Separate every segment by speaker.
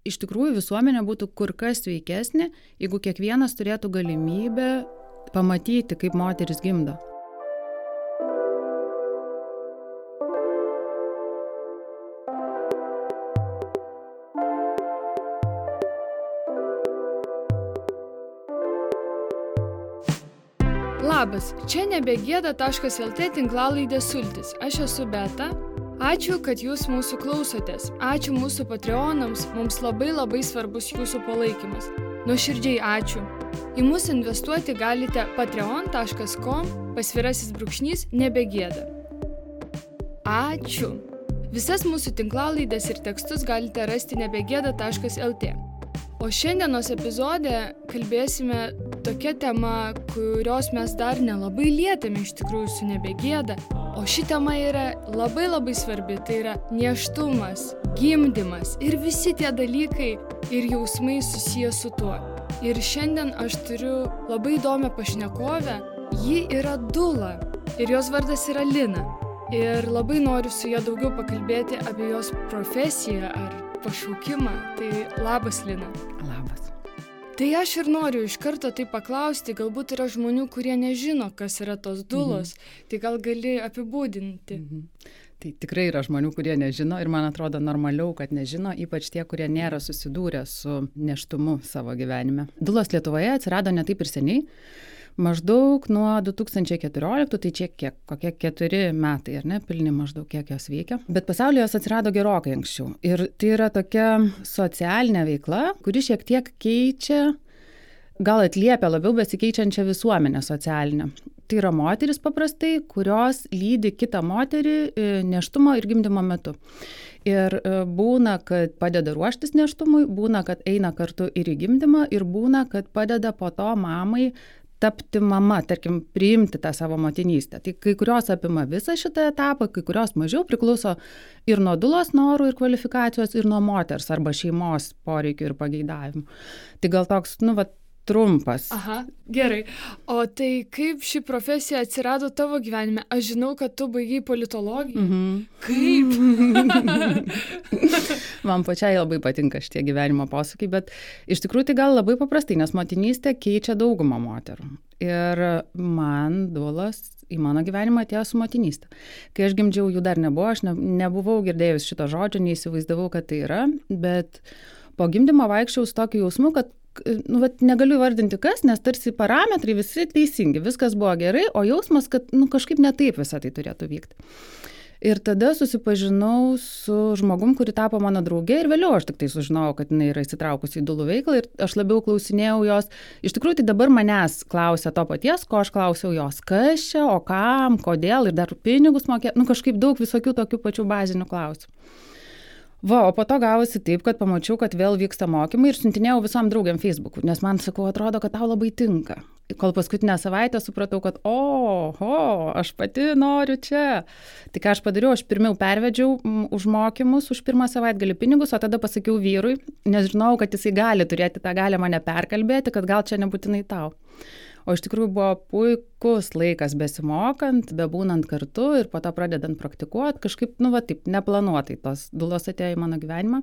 Speaker 1: iš tikrųjų visuomenė būtų kur kas sveikesnė, jeigu kiekvienas turėtų galimybę pamatyti, kaip moteris gimdo.
Speaker 2: Labas, čia nebegėda.lt tinklalaidė Sultis. Aš esu Beta. Ačiū, kad jūs mūsų klausotės. Ačiū mūsų Patreonams, mums labai svarbus jūsų palaikymas. Nuoširdžiai ačiū. Į mus investuoti galite patreon.com/nebegėda. Ačiū. Visas mūsų tinklalaidės ir tekstus galite rasti nebegėda.lt. O šiandienos epizode kalbėsime tokia tema, kurios mes dar nelabai lietėme iš tikrųjų su nebegėda. O ši tema yra labai svarbi, tai yra nėštumas, gimdymas ir visi tie dalykai ir jausmai susiję su tuo. Ir šiandien aš turiu labai įdomią pašnekovę, ji yra dula ir jos vardas yra Lina. Ir labai noriu su ja daugiau pakalbėti apie jos profesiją ar pašaukimą. Tai labas, Lina.
Speaker 1: Labas.
Speaker 2: Tai aš ir noriu iš karto tai paklausti, galbūt yra žmonių, kurie nežino, kas yra tos dulos, tai gal gali apibūdinti.
Speaker 1: Tai tikrai yra žmonių, kurie nežino ir man atrodo normaliau, kad nežino, ypač tie, kurie nėra susidūrę su nėštumu savo gyvenime. Dulos Lietuvoje atsirado ne taip ir seniai. Maždaug nuo 2014, tai čia kokie 4 metai, ar ne, pilni maždaug kiek jos veikia. Bet pasaulyje jos atsirado gerokai anksčiau. Ir tai yra tokia socialinė veikla, kuri šiek tiek keičia, gal atliepia labiau besikeičiančią visuomenę socialinę. Tai yra moteris paprastai, kurios lydi kitą moterį nėštumo ir gimdymo metu. Ir būna, kad padeda ruoštis nėštumui, būna, kad eina kartu ir į gimdymą, ir būna, kad padeda po to mamai tapti mama, tarkim, priimti tą savo motinystę. Tai kai kurios apima visą šitą etapą, kai kurios mažiau priklauso ir nuo dulos norų ir kvalifikacijos, ir nuo moters arba šeimos poreikių ir pageidavimų. Tai gal toks, trumpas.
Speaker 2: Aha, gerai. O tai kaip ši profesija atsirado tavo gyvenime? Aš žinau, kad tu baigei politologiją. Kaip?
Speaker 1: Man pačiai labai patinka šitie gyvenimo posūkiai, bet iš tikrųjų tai gal labai paprastai, nes motinystė keičia daugumą moterų. Ir man dulos į mano gyvenimą atėjo su motinystė. Kai aš gimdžiau, jų dar nebuvo, aš nebuvau girdėjus šito žodžio, neįsivaizdavau, kad tai yra, bet po gimdymo vaikščiau su tokiu jausmu, kad negaliu įvardinti kas, nes tarsi parametrai visi teisingi, viskas buvo gerai, o jausmas, kad kažkaip ne taip visą tai turėtų vykti. Ir tada susipažinau su žmogum, kuri tapo mano draugė ir vėliau aš tik tai sužinojau, kad jinai yra įsitraukusi į dulų veiklą ir aš labiau klausinėjau jos. Iš tikrųjų, tai dabar manęs klausia to paties, ko aš klausiau jos, kas čia, o kam, kodėl ir dar pinigus mokėti, kažkaip daug visokių tokių pačių bazinių klausimų. O po to gavosi taip, kad pamačiau, kad vėl vyksta mokymai ir siuntinėjau visom draugiam Facebook'u, nes man, atrodo, kad tau labai tinka. Kol paskutinę savaitę supratau, kad aš pati noriu čia. Tai ką aš padariau, aš pirmiau pervedžiau už mokymus, už pirmą savaitgalį pinigus, o tada pasakiau vyrui, nes žinau, kad jisai gali turėti tą galę mane perkalbėti, kad gal čia nebūtinai tau. O iš tikrųjų buvo puikus laikas besimokant, bebūnant kartu ir po to pradedant praktikuoti, kažkaip, taip, neplanuotai tos dulos atėjo į mano gyvenimą.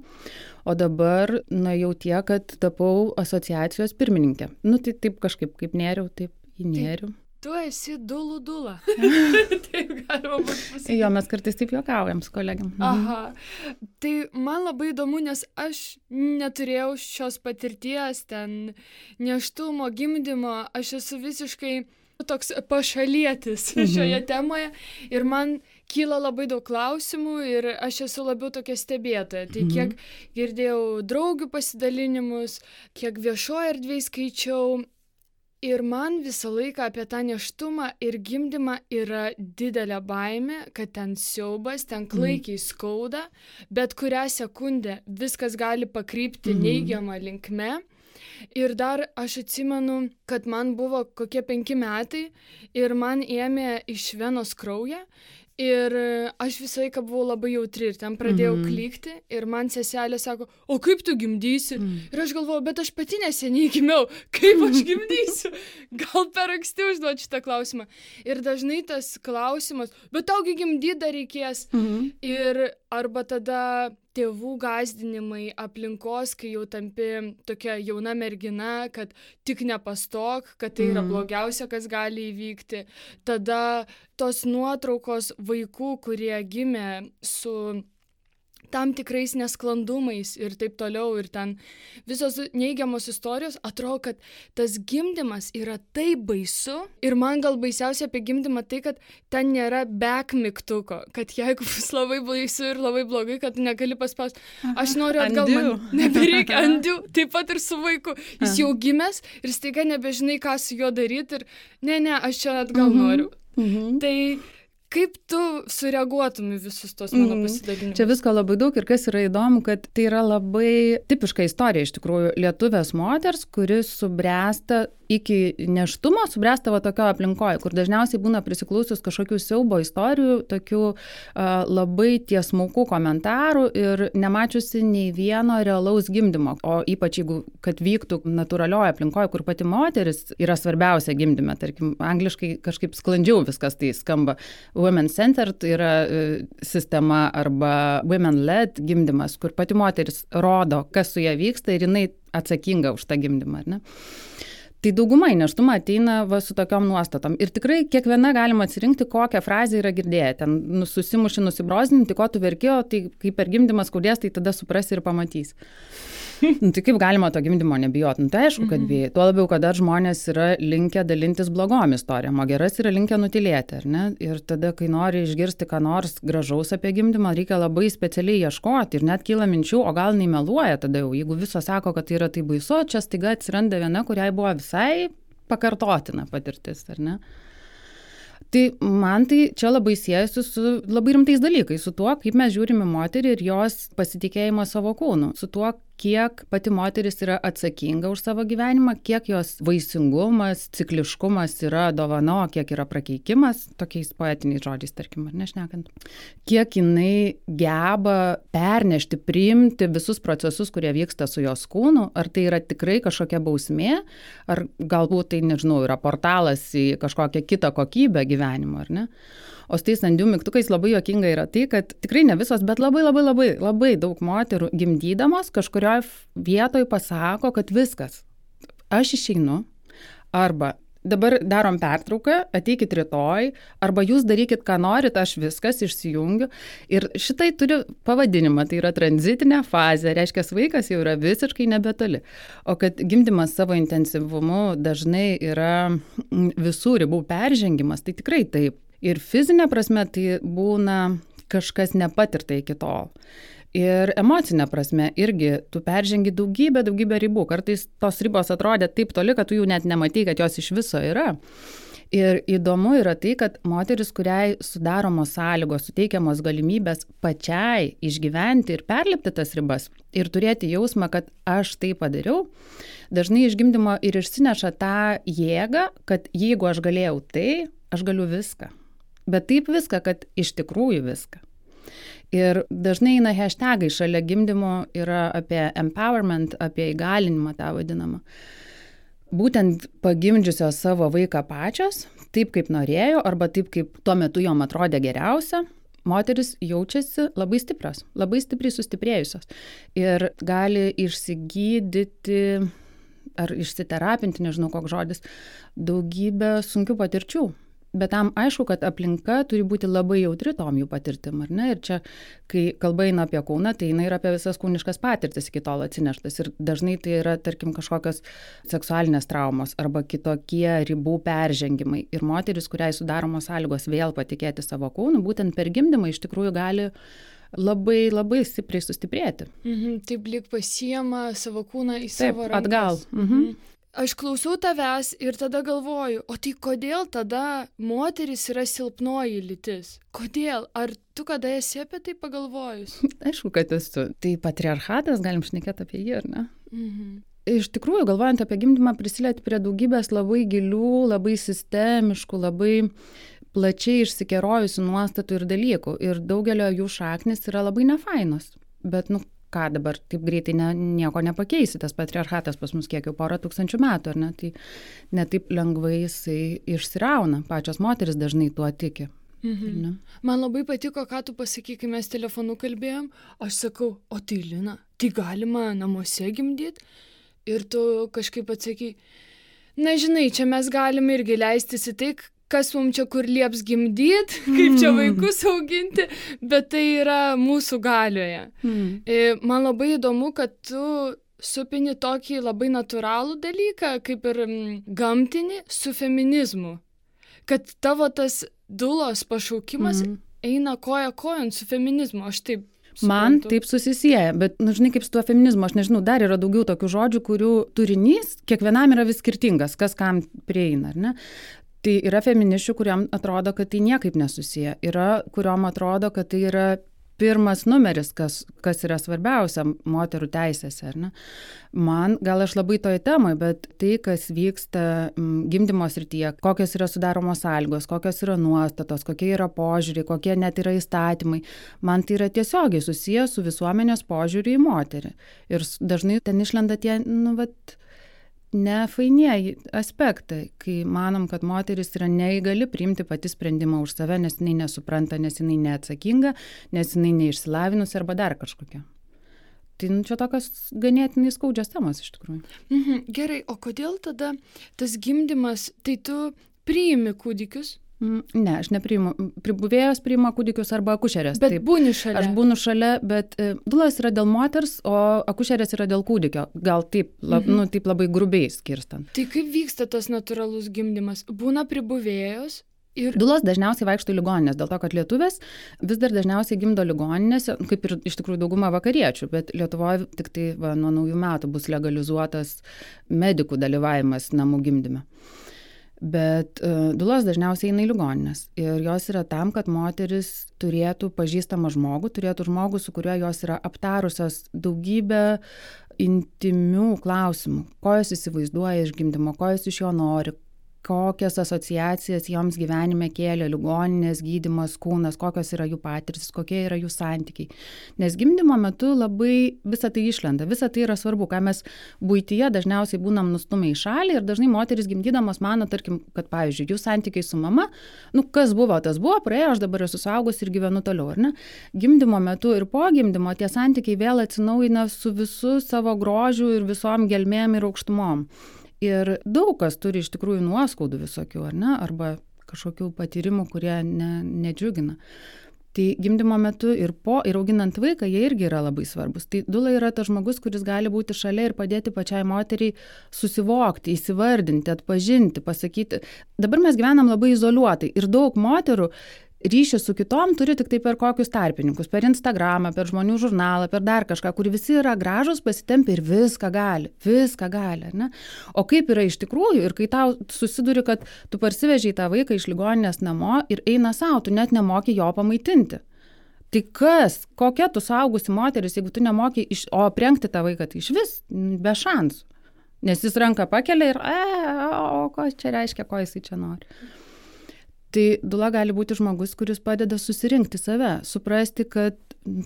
Speaker 1: O dabar, jau tiek, kad tapau asociacijos pirmininkė. Tai taip kažkaip, kaip nėriau, taip įnėriau.
Speaker 2: Tu esi dulų dula. Taip galima būtų pasakyti.
Speaker 1: Jo, mes kartais taip juokaujam su kolegiam.
Speaker 2: Aha. Tai man labai įdomu, nes aš neturėjau šios patirties, ten nėštumo, gimdymo, aš esu visiškai toks pašalietis šioje temoje ir man kyla labai daug klausimų ir aš esu labiau tokia stebėtoja. Tai kiek girdėjau draugių pasidalinimus, kiek viešoje erdvėje skaičiau. Ir man visą laiką apie tą nėštumą ir gimdymą yra didelė baimė, kad ten siaubas, ten klaikiai skauda, bet kurią sekundę viskas gali pakrypti neigiamą linkme. Ir dar aš atsimenu, kad man buvo kokie 5 metai ir man ėmė iš venos kraują. Ir aš visą laiką buvau labai jautri ir ten pradėjau klykti ir man seselė sako, o kaip tu gimdysi? Ir aš galvoju, bet aš pati neseniai gimiau, kaip aš gimdysiu? Gal per anksti užduoti šitą klausimą. Ir dažnai tas klausimas, bet taugi gimdyti dar reikės. Ir arba tada tėvų gąsdinimai, aplinkos, kai jau tampi tokia jauna mergina, kad tik nepastok, kad tai yra blogiausia, kas gali įvykti. Tada tos nuotraukos vaikų, kurie gimė su tam tikrais nesklandumais ir taip toliau, ir ten visos neigiamos istorijos, atrodo, kad tas gimdymas yra taip baisu. Ir man gal baisiausia apie gimdymą tai, kad ten nėra back mygtuko, kad jeigu bus labai baisu ir labai blogai, kad negali paspausti. Aš noriu atgal, man nebereikia undo, taip pat ir su vaiku. Jis jau gimęs ir staiga nebežinai, ką su juo daryti ir ne, aš čia atgal noriu. Tai kaip tu sureaguotum į visus tos mano pasidalinimus?
Speaker 1: Čia visko labai daug ir kas yra įdomu, kad tai yra labai tipiška istorija iš tikrųjų lietuvės moters, kuris subręsta iki nėštumo, subręsta va tokio aplinkoje, kur dažniausiai būna prisiklausius kažkokių siaubo istorijų, tokių labai tiesmukų komentarų ir nemačiusi nei vieno realaus gimdymo. O ypač jeigu, kad vyktų natūralioje aplinkoje, kur pati moteris yra svarbiausia gimdyme, tarkim, angliškai kažkaip sklandžiau viskas tai skamba. Women-centered yra sistema arba women-led gimdymas, kur pati moteris rodo, kas su ja vyksta ir jinai atsakinga už tą gimdymą, ar ne? Tai dauguma į nėštumą ateina va su tokiom nuostatom. Ir tikrai kiekviena galima atsirinkti, kokią frazę yra girdėję. Ten susimuši, nusibrozdinti, ko tu verkėjo, tai kai per gimdymą skaudės, tai tada suprasi ir pamatys. Tai kaip galima to gimdymo nebijot? Tai aišku, kad bijai. Tuo labiau, kad dar žmonės yra linkę dalintis blogom istorijom, o geras yra linkę nutylėti, ar ne? Ir tada, kai nori išgirsti ką nors gražaus apie gimdymą, reikia labai specialiai ieškoti ir net kyla minčių, o gal nemeluoja tada jau. Jeigu visos sako, kad tai yra tai baisu, čia staiga atsiranda viena, kuriai buvo visai pakartotina patirtis, ar ne? Tai man tai čia labai siejasi su labai rimtais dalykais, su tuo, kaip mes žiūrime moterį ir jos pasitikėjimą savo kūnu, su tuo, kiek pati moteris yra atsakinga už savo gyvenimą, kiek jos vaisingumas, cikliškumas yra dovana, kiek yra prakeikimas, tokiais poetiniais žodžiais, tarkim, ar nešnekant. Kiek jinai geba pernešti, priimti visus procesus, kurie vyksta su jos kūnu, ar tai yra tikrai kažkokia bausmė, ar galbūt tai, nežinau, yra portalas į kažkokią kitą kokybę gyvenimo, ar ne? O su tais undo mygtukais labai juokinga yra tai, kad tikrai ne visos, bet labai daug moterų gimdydamos kažkurioje vietoje pasako, kad viskas, aš išeinu, arba dabar darom pertrauką, ateikit rytoj, arba jūs darykit, ką norit, aš viskas išsijungiu. Ir šitai turi pavadinimą, tai yra tranzitinė fazė, reiškia, vaikas jau yra visiškai nebetoli. O kad gimdymas savo intensyvumu dažnai yra visų ribų peržengimas, tai tikrai taip. Ir fizinė prasme tai būna kažkas nepatirta iki tol. Ir emocinė prasme irgi tu peržengi daugybę ribų. Kartais tos ribos atrodė taip toli, kad tu jų net nematai, kad jos iš viso yra. Ir įdomu yra tai, kad moteris, kuriai sudaromos sąlygos, suteikiamos galimybės pačiai išgyventi ir perlipti tas ribas ir turėti jausmą, kad aš tai padariau, dažnai iš gimdymo ir išsineša tą jėgą, kad jeigu aš galėjau tai, aš galiu viską. Bet taip viską, kad iš tikrųjų viską. Ir dažnai eina hashtagai šalia gimdymo yra apie empowerment, apie įgalinimą tą vadinamą. Būtent pagimdžiusios savo vaiką pačios, taip kaip norėjo, arba taip kaip tuo metu jom atrodė geriausia, moteris jaučiasi labai stiprios, labai stipriai sustiprėjusios. Ir gali išsigydyti ar išsiterapinti, nežinau koks žodis, daugybę sunkių patirčių. Bet tam aišku, kad aplinka turi būti labai jautri tom jų patirtim, ar ne? Ir čia, kai kalba eina apie kūną, tai eina ir apie visas kūniškas patirtis iki tol atsineštas. Ir dažnai tai yra, tarkim, kažkokios seksualinės traumos arba kitokie ribų peržengimai. Ir moteris, kuriai sudaromos sąlygos vėl patikėti savo kūnu, būtent per gimdymą iš tikrųjų gali labai stipriai sustiprėti.
Speaker 2: Taip lyg pasiema savo kūną į savo rankas.
Speaker 1: Atgal.
Speaker 2: Aš klausau tavęs ir tada galvoju, o tai kodėl tada moteris yra silpnoji lytis? Kodėl? Ar tu kada esi apie tai pagalvojus?
Speaker 1: Aišku, kad esu. Tai patriarchatas, galim šnekėti apie jį, ar ne? Iš tikrųjų, galvojant apie gimdymą, prisilieti prie daugybės labai gilių, labai sistemiškų, labai plačiai išsikerojusių nuostatų ir dalykų. Ir daugelio jų šaknis yra labai nefainos. Bet, ką dabar taip greitai nieko nepakeisi, tas patriarchatas pas mus kiek jau 1000 metų, ar ne? Tai ne taip lengvai jisai išsirauna, pačios moteris dažnai tuo tiki.
Speaker 2: Mhm. Man labai patiko, ką tu pasakai, kai mes telefonu kalbėjom. Aš sakau, o tai Lina, tai galima namuose gimdyti? Ir tu kažkaip atsakai, na žinai, čia mes galime irgi leistis į tai, kas mums čia kur lieps gimdyti, kaip čia vaikus auginti, bet tai yra mūsų galioje. Man labai įdomu, kad tu supini tokį labai natūralų dalyką, kaip ir gamtinį, su feminizmu. Kad tavo tas dulos pašaukimas eina koja kojon su feminizmu, aš taip suprantu.
Speaker 1: Man taip susisieja, bet, žinai, kaip su tuo feminizmu, aš nežinau, dar yra daugiau tokių žodžių, kurių turinys kiekvienam yra vis skirtingas, kas kam prieina, ar ne? Tai yra feministių, kuriam atrodo, kad tai niekaip nesusiję, yra, kuriom atrodo, kad tai yra pirmas numeris, kas yra svarbiausia moterų teisėse, ar ne? Man, gal aš labai toje temoje, bet tai, kas vyksta gimdymo srityje, kokios yra sudaromos sąlygos, kokios yra nuostatos, kokie yra požiūriai, kokie net yra įstatymai, man tai yra tiesiogiai susiję su visuomenės požiūriu į moterį. Ir dažnai ten išlenda tie, nefainieji aspektai, kai manom, kad moteris yra neįgali priimti pati sprendimą už save, nes jinai nesupranta, nes jinai neatsakinga, nes jinai neišsilavinusi arba dar kažkokia. Tai čia tokios ganėtinai skaudžios temos iš tikrųjų.
Speaker 2: Gerai, o kodėl tada tas gimdymas, tai tu priimi kūdikius?
Speaker 1: Ne, aš nepriimu. Pribuvėjos priima kūdikius arba akušerės.
Speaker 2: Bet būni šalia.
Speaker 1: Aš būnu šalia, bet dulos yra dėl moters, o akušerės yra dėl kūdikio. Gal taip, taip labai grubiai skirstant.
Speaker 2: Tai kaip vyksta tas natūralus gimdymas? Būna pribuvėjos?
Speaker 1: Dulos dažniausiai vaikšto į ligoninės, dėl to, kad lietuvės vis dar dažniausiai gimdo ligoninėse, kaip ir iš tikrųjų dauguma vakariečių, bet Lietuvoje tik tai nuo naujų metų bus legalizuotas medikų dalyvavimas namų gimdyme. Bet dulos dažniausiai eina į ligoninės ir jos yra tam, kad moteris turėtų pažįstamą žmogų, turėtų žmogų, su kuriuo jos yra aptarusios daugybę intimių klausimų, ko jos įsivaizduoja iš gimdymo, ko jos iš jo nori, kokias asociacijas joms gyvenime kėlė ligoninės, gydymas, kūnas, kokios yra jų patirtis, kokie yra jų santykiai. Nes gimdymo metu labai visą tai išlenda, visą tai yra svarbu, ką mes buityje dažniausiai būnam nustumę į šalį ir dažnai moteris gimdydamos mano, tarkim, kad pavyzdžiui, jų santykiai su mama, kas buvo, tas buvo, praėjo, aš dabar esu suaugus ir gyvenu toliau, ar ne? Gimdymo metu ir po gimdymo tie santykiai vėl atsinaujina su visu savo grožiu ir visom gelmėm ir aukštumom. Ir daug kas turi iš tikrųjų nuoskaudų visokių, ar ne? Arba kažkokių patyrimų, kurie nedžiugina. Tai gimdymo metu ir po, ir auginant vaiką, jie irgi yra labai svarbus. Tai dula yra tas žmogus, kuris gali būti šalia ir padėti pačiai moteriai susivokti, įsivardinti, atpažinti, pasakyti. Dabar mes gyvenam labai izoliuotai ir daug moterų ryšį su kitom turi tik tai per kokius tarpininkus, per Instagramą, per žmonių žurnalą, per dar kažką, kur visi yra gražus, pasitempia ir viską gali, ar ne? O kaip yra iš tikrųjų ir kai tau susiduri, kad tu parsivežiai tą vaiką iš ligoninės namo ir eina savo, tu net nemoki jo pamaitinti. Tai kas, kokia tu suaugusi moteris, jeigu tu nemoki, o aprengti tą vaiką, tai iš vis be šansų. Nes jis ranką pakelia ir, o ko čia reiškia, ko jisai čia nori. Tai dula gali būti žmogus, kuris padeda susirinkti save, suprasti, kad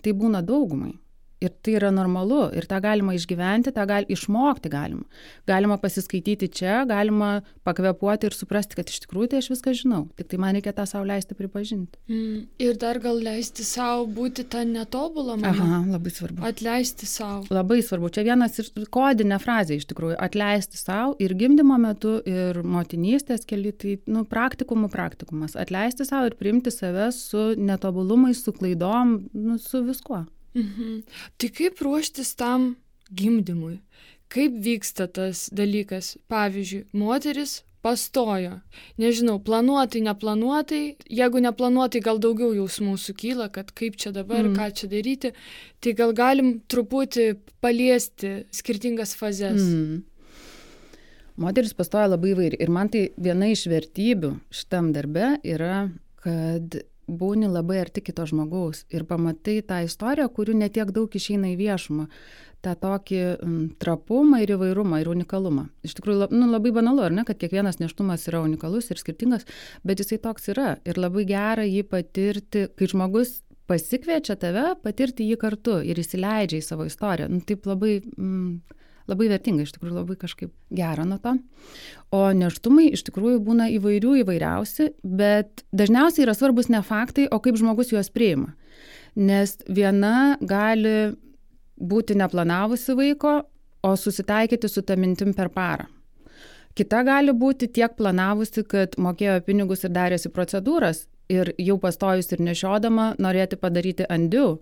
Speaker 1: tai būna daugumai. Ir tai yra normalu, ir tą galima išgyventi, tą išmokti galima. Galima pasiskaityti čia, galima pakvepuoti ir suprasti, kad iš tikrųjų tai aš viską žinau. Tik tai man reikia tą savo leisti pripažinti.
Speaker 2: Ir dar gal leisti savo būti tą netobulą mamą.
Speaker 1: Aha, labai svarbu.
Speaker 2: Atleisti savo.
Speaker 1: Labai svarbu. Čia vienas ir kodinė frazė iš tikrųjų. Atleisti savo ir gimdymo metu, ir motinystės keli, tai praktikumas. Atleisti savo ir priimti save su netobulumais, su klaidom, su viskuo.
Speaker 2: Tai kaip ruoštis tam gimdymui? Kaip vyksta tas dalykas? Pavyzdžiui, moteris pastojo. Nežinau, planuotai, neplanuotai. Jeigu neplanuotai, gal daugiau jausmų sukyla, kad kaip čia dabar, ką čia daryti. Tai gal galim truputį paliesti skirtingas fazes.
Speaker 1: Moteris pastoja labai įvairiai. Ir man tai viena iš vertybių šitam darbe yra, kad būni labai arti kito žmogaus ir pamatai tą istoriją, kurių netiek daug išeina į viešumą. tą tokį trapumą ir įvairumą ir unikalumą. Iš tikrųjų, labai banalu, ar ne, kad kiekvienas nėštumas yra unikalus ir skirtingas, bet jisai toks yra. Ir labai gera jį patirti, kai žmogus pasikviečia tave, patirti jį kartu ir įsileidžia į savo istoriją. Taip labai labai vertinga, iš tikrųjų labai kažkaip gera nuo to. O nėštumai iš tikrųjų būna įvairiausi, bet dažniausiai yra svarbus ne faktai, o kaip žmogus juos priima. Nes viena gali būti neplanavusi vaiko, o susitaikyti su ta mintim per parą. Kita gali būti tiek planavusi, kad mokėjo pinigus ir darėsi procedūras ir jau pastojus ir nešiodama norėti padaryti undue.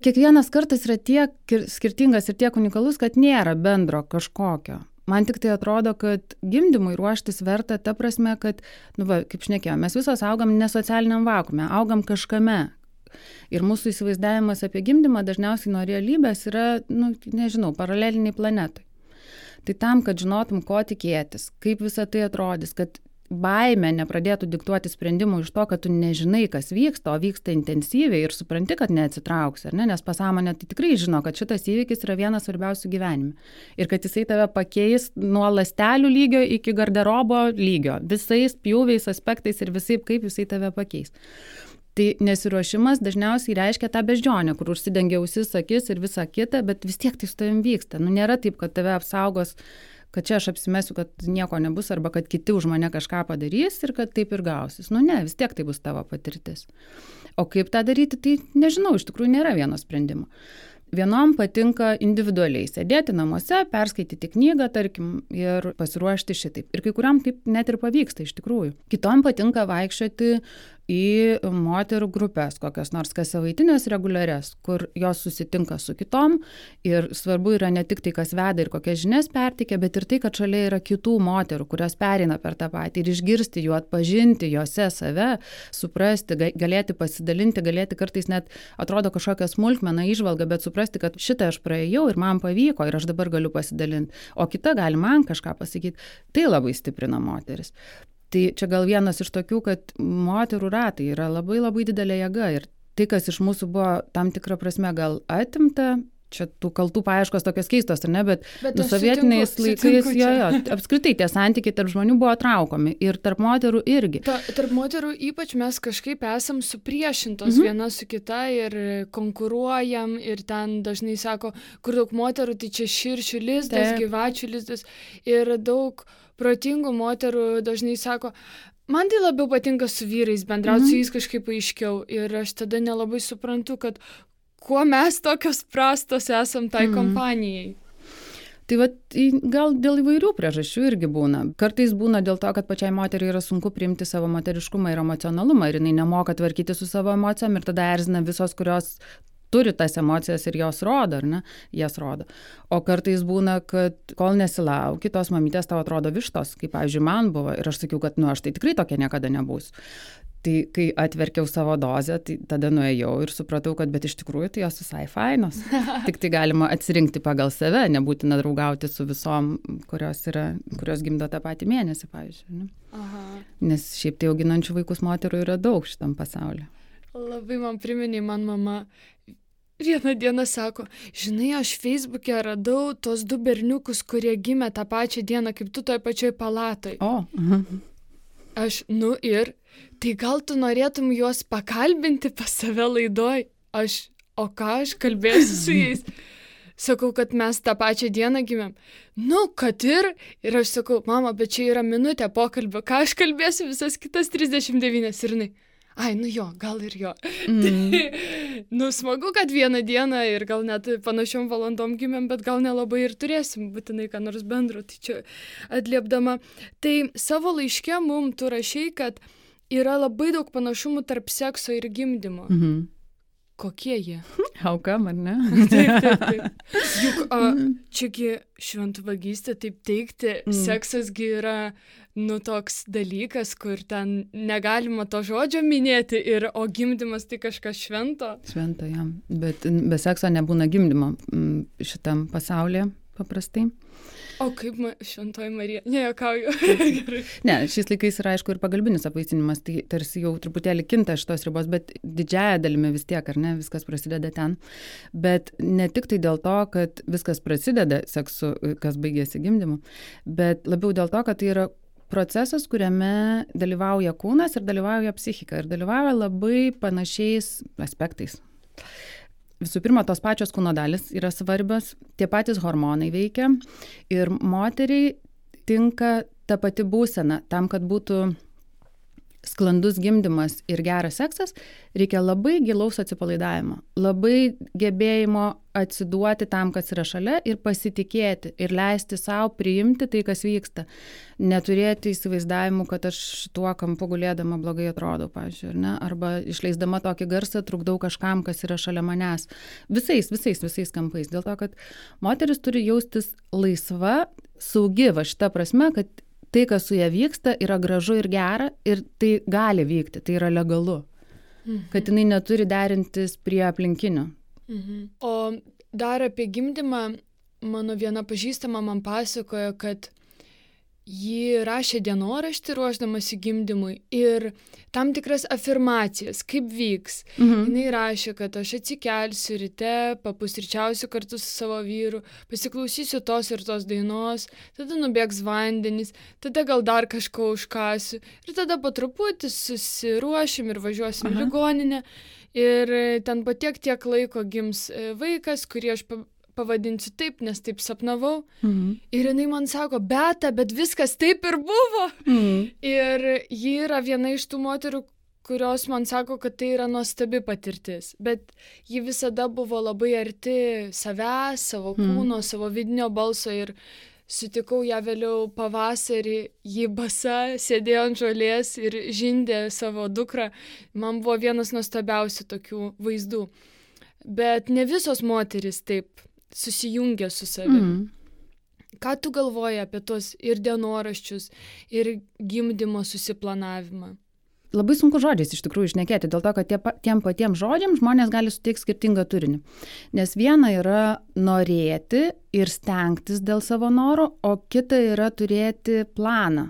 Speaker 1: Kiekvienas kartas yra tiek skirtingas ir tiek unikalus, kad nėra bendro kažkokio. Man tik tai atrodo, kad gimdymui ruoštis verta ta prasme, kad, kaip šnekėjome, mes visos augam ne socialiniam vakuume, augam kažkame. Ir mūsų įsivaizdavimas apie gimdymą dažniausiai nuo realybės yra, paraleliniai planetai. Tai tam, kad žinotum, ko tikėtis, kaip visa tai atrodys, kad baimė nepradėtų diktuoti sprendimų iš to, kad tu nežinai, kas vyksta, o vyksta intensyviai ir supranti, kad neatsitrauksi, nes pasąmonė tai tikrai žino, kad šitas įvykis yra vienas svarbiausių gyvenime. Ir kad jisai tave pakeis nuo ląstelių lygio iki garderobo lygio, visais pjūviais, aspektais ir visai, kaip jisai tave pakeis. Tai nesiruošimas dažniausiai reiškia tą beždžionę, kur užsidengia ausis, akis ir visa kita, bet vis tiek tai su tavim vyksta. Nėra taip, kad tave apsaugos, kad čia aš apsimesiu, kad nieko nebus, arba kad kiti už mane kažką padarys ir kad taip ir gausis. Ne, vis tiek tai bus tavo patirtis. O kaip tą daryti, tai nežinau, iš tikrųjų nėra vieno sprendimo. Vienom patinka individualiai sėdėti namuose, perskaityti knygą, tarkim, ir pasiruošti šitaip. Ir kai kuriam taip net ir pavyksta iš tikrųjų. Kitom patinka vaikščioti į moterų grupės, kokios nors kas savaitinės reguliarias, kur jos susitinka su kitom ir svarbu yra ne tik tai, kas veda ir kokias žinias perteikia, bet ir tai, kad šalia yra kitų moterų, kurios pereina per tą patį ir išgirsti jų, atpažinti jose save, suprasti, galėti pasidalinti, galėti kartais net atrodo kažkokią smulkmeną įžvalgą, bet suprasti, kad šitą aš praėjau ir man pavyko ir aš dabar galiu pasidalinti, o kita gali man kažką pasakyti. Tai labai stiprina moteris. Tai čia gal vienas iš tokių, kad moterų ratai yra labai labai didelė jėga ir tai, kas iš mūsų buvo tam tikrą prasme gal atimta, čia tų kaltų paieškos tokios keistos, ar ne, bet sovietiniais laikais apskritai tie santykiai tarp žmonių buvo traukomi ir tarp moterų irgi.
Speaker 2: Tarp moterų ypač mes kažkaip esam supriešintos viena su kita ir konkuruojam ir ten dažnai sako, kur daug moterų, tai čia širšių lizdas, gyvačių lizdas ir daug protingų moterų dažnai sako, man tai labiau patinka su vyrais bendrauti, su jais kažkaip aiškiau ir aš tada nelabai suprantu, kad kuo mes tokios prastos esam tai kompanijai.
Speaker 1: Tai gal dėl įvairių priežasčių irgi būna. Kartais būna dėl to, kad pačiai moteriai yra sunku priimti savo moteriškumą ir emocionalumą ir jinai nemoka tvarkyti su savo emocijom ir tada erzina visos, kurios turi tas emocijas ir jos rodo, ar ne? Jas rodo. O kartais būna, kad kol nesilauki, tos mamytės tau atrodo vištos, kaip, pavyzdžiui, man buvo. Ir aš sakiau, kad aš tai tikrai tokia niekada nebūsiu. Tai kai atverkiau savo dozę, tai tada nuėjau ir supratau, kad bet iš tikrųjų tai jos visai fainos. Tik tai galima atsirinkti pagal save, nebūtina draugauti su visom, kurios gimdo tą patį mėnesį, pavyzdžiui. Ne?
Speaker 2: Aha.
Speaker 1: Nes šiaip tai auginančių vaikus moterų yra daug šitam pasaulyje.
Speaker 2: Labai man priminė, man mama vieną dieną sako, žinai, aš Facebook'e radau tos 2 berniukus, kurie gimė tą pačią dieną, kaip tu toj pačioj palatoj.
Speaker 1: O.
Speaker 2: Aš, ir, tai gal tu norėtum juos pakalbinti pas save laidoj? O ką aš kalbėsiu su jais? Sakau, kad mes tą pačią dieną gimėm. Kad ir aš sakau, mama, bet čia yra minutė pokalbio, ką aš kalbėsiu visas kitas 39 ir jinai. Gal ir jo. Smagu, kad vieną dieną ir gal net panašiom valandom gimėm, bet gal nelabai ir turėsim būtinai ką nors bendro. Tai čia atliepdama. Tai savo laiške mum tu rašei, kad yra labai daug panašumų tarp sekso ir gimdymo. Kokie jie?
Speaker 1: Aukam, ar ne?
Speaker 2: Taip. Juk čiagi šventvagystė, taip teikti, seksasgi yra toks dalykas, kur ten negalima to žodžio minėti, o gimdymas tai kažkas švento.
Speaker 1: Švento, jam. Bet be sekso nebūna gimdymo šitam pasaulyje paprastai.
Speaker 2: O kaip šventoji Marija? Nejuokauju.
Speaker 1: Ne, šiais laikais yra aišku ir pagalbinis apvaisinimas, tai tarsi jau truputėlį kinta šitos ribos, bet didžiąja dalimi vis tiek, ar ne, viskas prasideda ten. Bet ne tik tai dėl to, kad viskas prasideda seksu, kas baigėsi gimdymu, bet labiau dėl to, kad tai yra procesas, kuriame dalyvauja kūnas ir dalyvauja psichika ir dalyvauja labai panašiais aspektais. visų pirma, tos pačios kūno dalis yra svarbios, tie patys hormonai veikia ir moteriai tinka ta pati būsena. Tam, kad būtų sklandus gimdymas ir geras seksas, reikia labai gilaus atsipalaidavimo, labai gebėjimo atsiduoti tam, kas yra šalia ir pasitikėti ir leisti savo priimti tai, kas vyksta. Neturėti įsivaizdavimų, kad aš šituo kampu gulėdama blogai atrodau, pavyzdžiui, ne? Arba išleisdama tokį garsą trukdau kažkam, kas yra šalia manęs. Visais kampais. Dėl to, kad moteris turi jaustis laisva, saugi, va šita prasme, kad tai, kas su ja vyksta, yra gražu ir gera ir tai gali vykti, tai yra legalu. Kad jinai neturi derintis prie aplinkinių.
Speaker 2: O dar apie gimdymą mano viena pažįstama man pasakojo, kad ji rašė dienoraštį ruošdamasi gimdymui ir tam tikras afirmacijas, kaip vyks. Jinai rašė, kad aš atsikelsiu ryte, papusryčiausiu kartu su savo vyru, pasiklausysiu tos ir tos dainos, tada nubėgs vandenys, tada gal dar kažko užkasiu ir tada po truputį susiruošim ir važiuosim į ligoninę ir ten po tiek laiko gims vaikas, kurį aš pavadinsiu taip, nes taip sapnavau. Ir jinai man sako, Beata, bet viskas taip ir buvo. Ir ji yra viena iš tų moterų, kurios man sako, kad tai yra nuostabi patirtis. Bet ji visada buvo labai arti savęs, savo kūno, savo vidinio balso ir sutikau ją vėliau pavasarį, ji basa, sėdėjo ant žolės ir žindė savo dukrą. Man buvo vienas nuostabiausių tokių vaizdų. Bet ne visos moterys taip susijungia su savimi. Ką tu galvoji apie tos ir dienoraščius, ir gimdymo susiplanavimą?
Speaker 1: Labai sunku žodžiais iš tikrųjų šnekėti, dėl to, kad tiem patiem žodžiam žmonės gali suteikti skirtingą turinį. Nes viena yra norėti ir stengtis dėl savo norų, o kita yra turėti planą.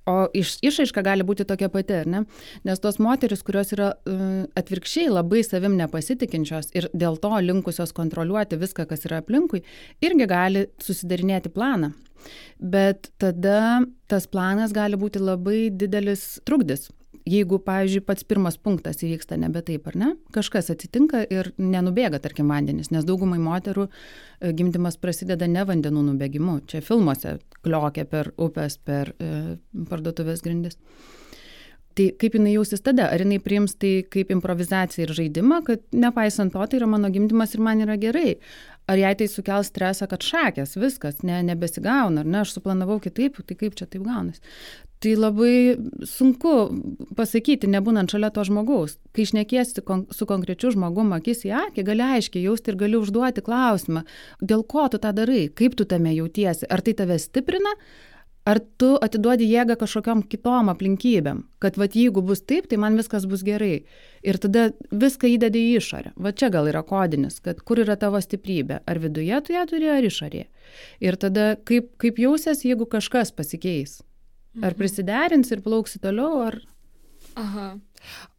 Speaker 1: O išraiška gali būti tokia pati, ar ne? Nes tos moteris, kurios yra atvirkščiai labai savim nepasitikinčios ir dėl to linkusios kontroliuoti viską, kas yra aplinkui, irgi gali susidarinėti planą. Bet tada tas planas gali būti labai didelis trukdis. Jeigu, pavyzdžiui, pats pirmas punktas įvyksta nebe taip, ar ne? Kažkas atsitinka ir nenubėga, tarkim, vandenys, nes daugumai moterų gimdymas prasideda ne vandenų nubėgimu. Čia filmuose kliokia per upes, per parduotuvės grindis. Tai kaip jinai jausis tada? Ar jinai priims tai kaip improvizaciją ir žaidimą, kad nepaisant to, tai yra mano gimdymas ir man yra gerai? Ar jai tai sukels stresą, kad šakės, viskas, nebesigauna, ar ne? Aš suplanavau kitaip, tai kaip čia taip gaunas? Tai labai sunku pasakyti, nebūnant šalia to žmogaus. Kai šnekiesi su konkrečiu žmogum akis į akį, gali aiškiai jausti ir gali užduoti klausimą, dėl ko tu tą darai, kaip tu tame jautiesi, ar tai tave stiprina, ar tu atiduodi jėgą kažkokiom kitom aplinkybėm, kad vat jeigu bus taip, tai man viskas bus gerai. Ir tada viską įdedi į išorę. Va čia gal yra kodinis, kad kur yra tavo stiprybė, ar viduje tu ją turi, ar išorėje. Ir tada kaip jausies, jeigu kažkas pasikeis. Ar prisiderins ir plauksi toliau, ar...
Speaker 2: Aha.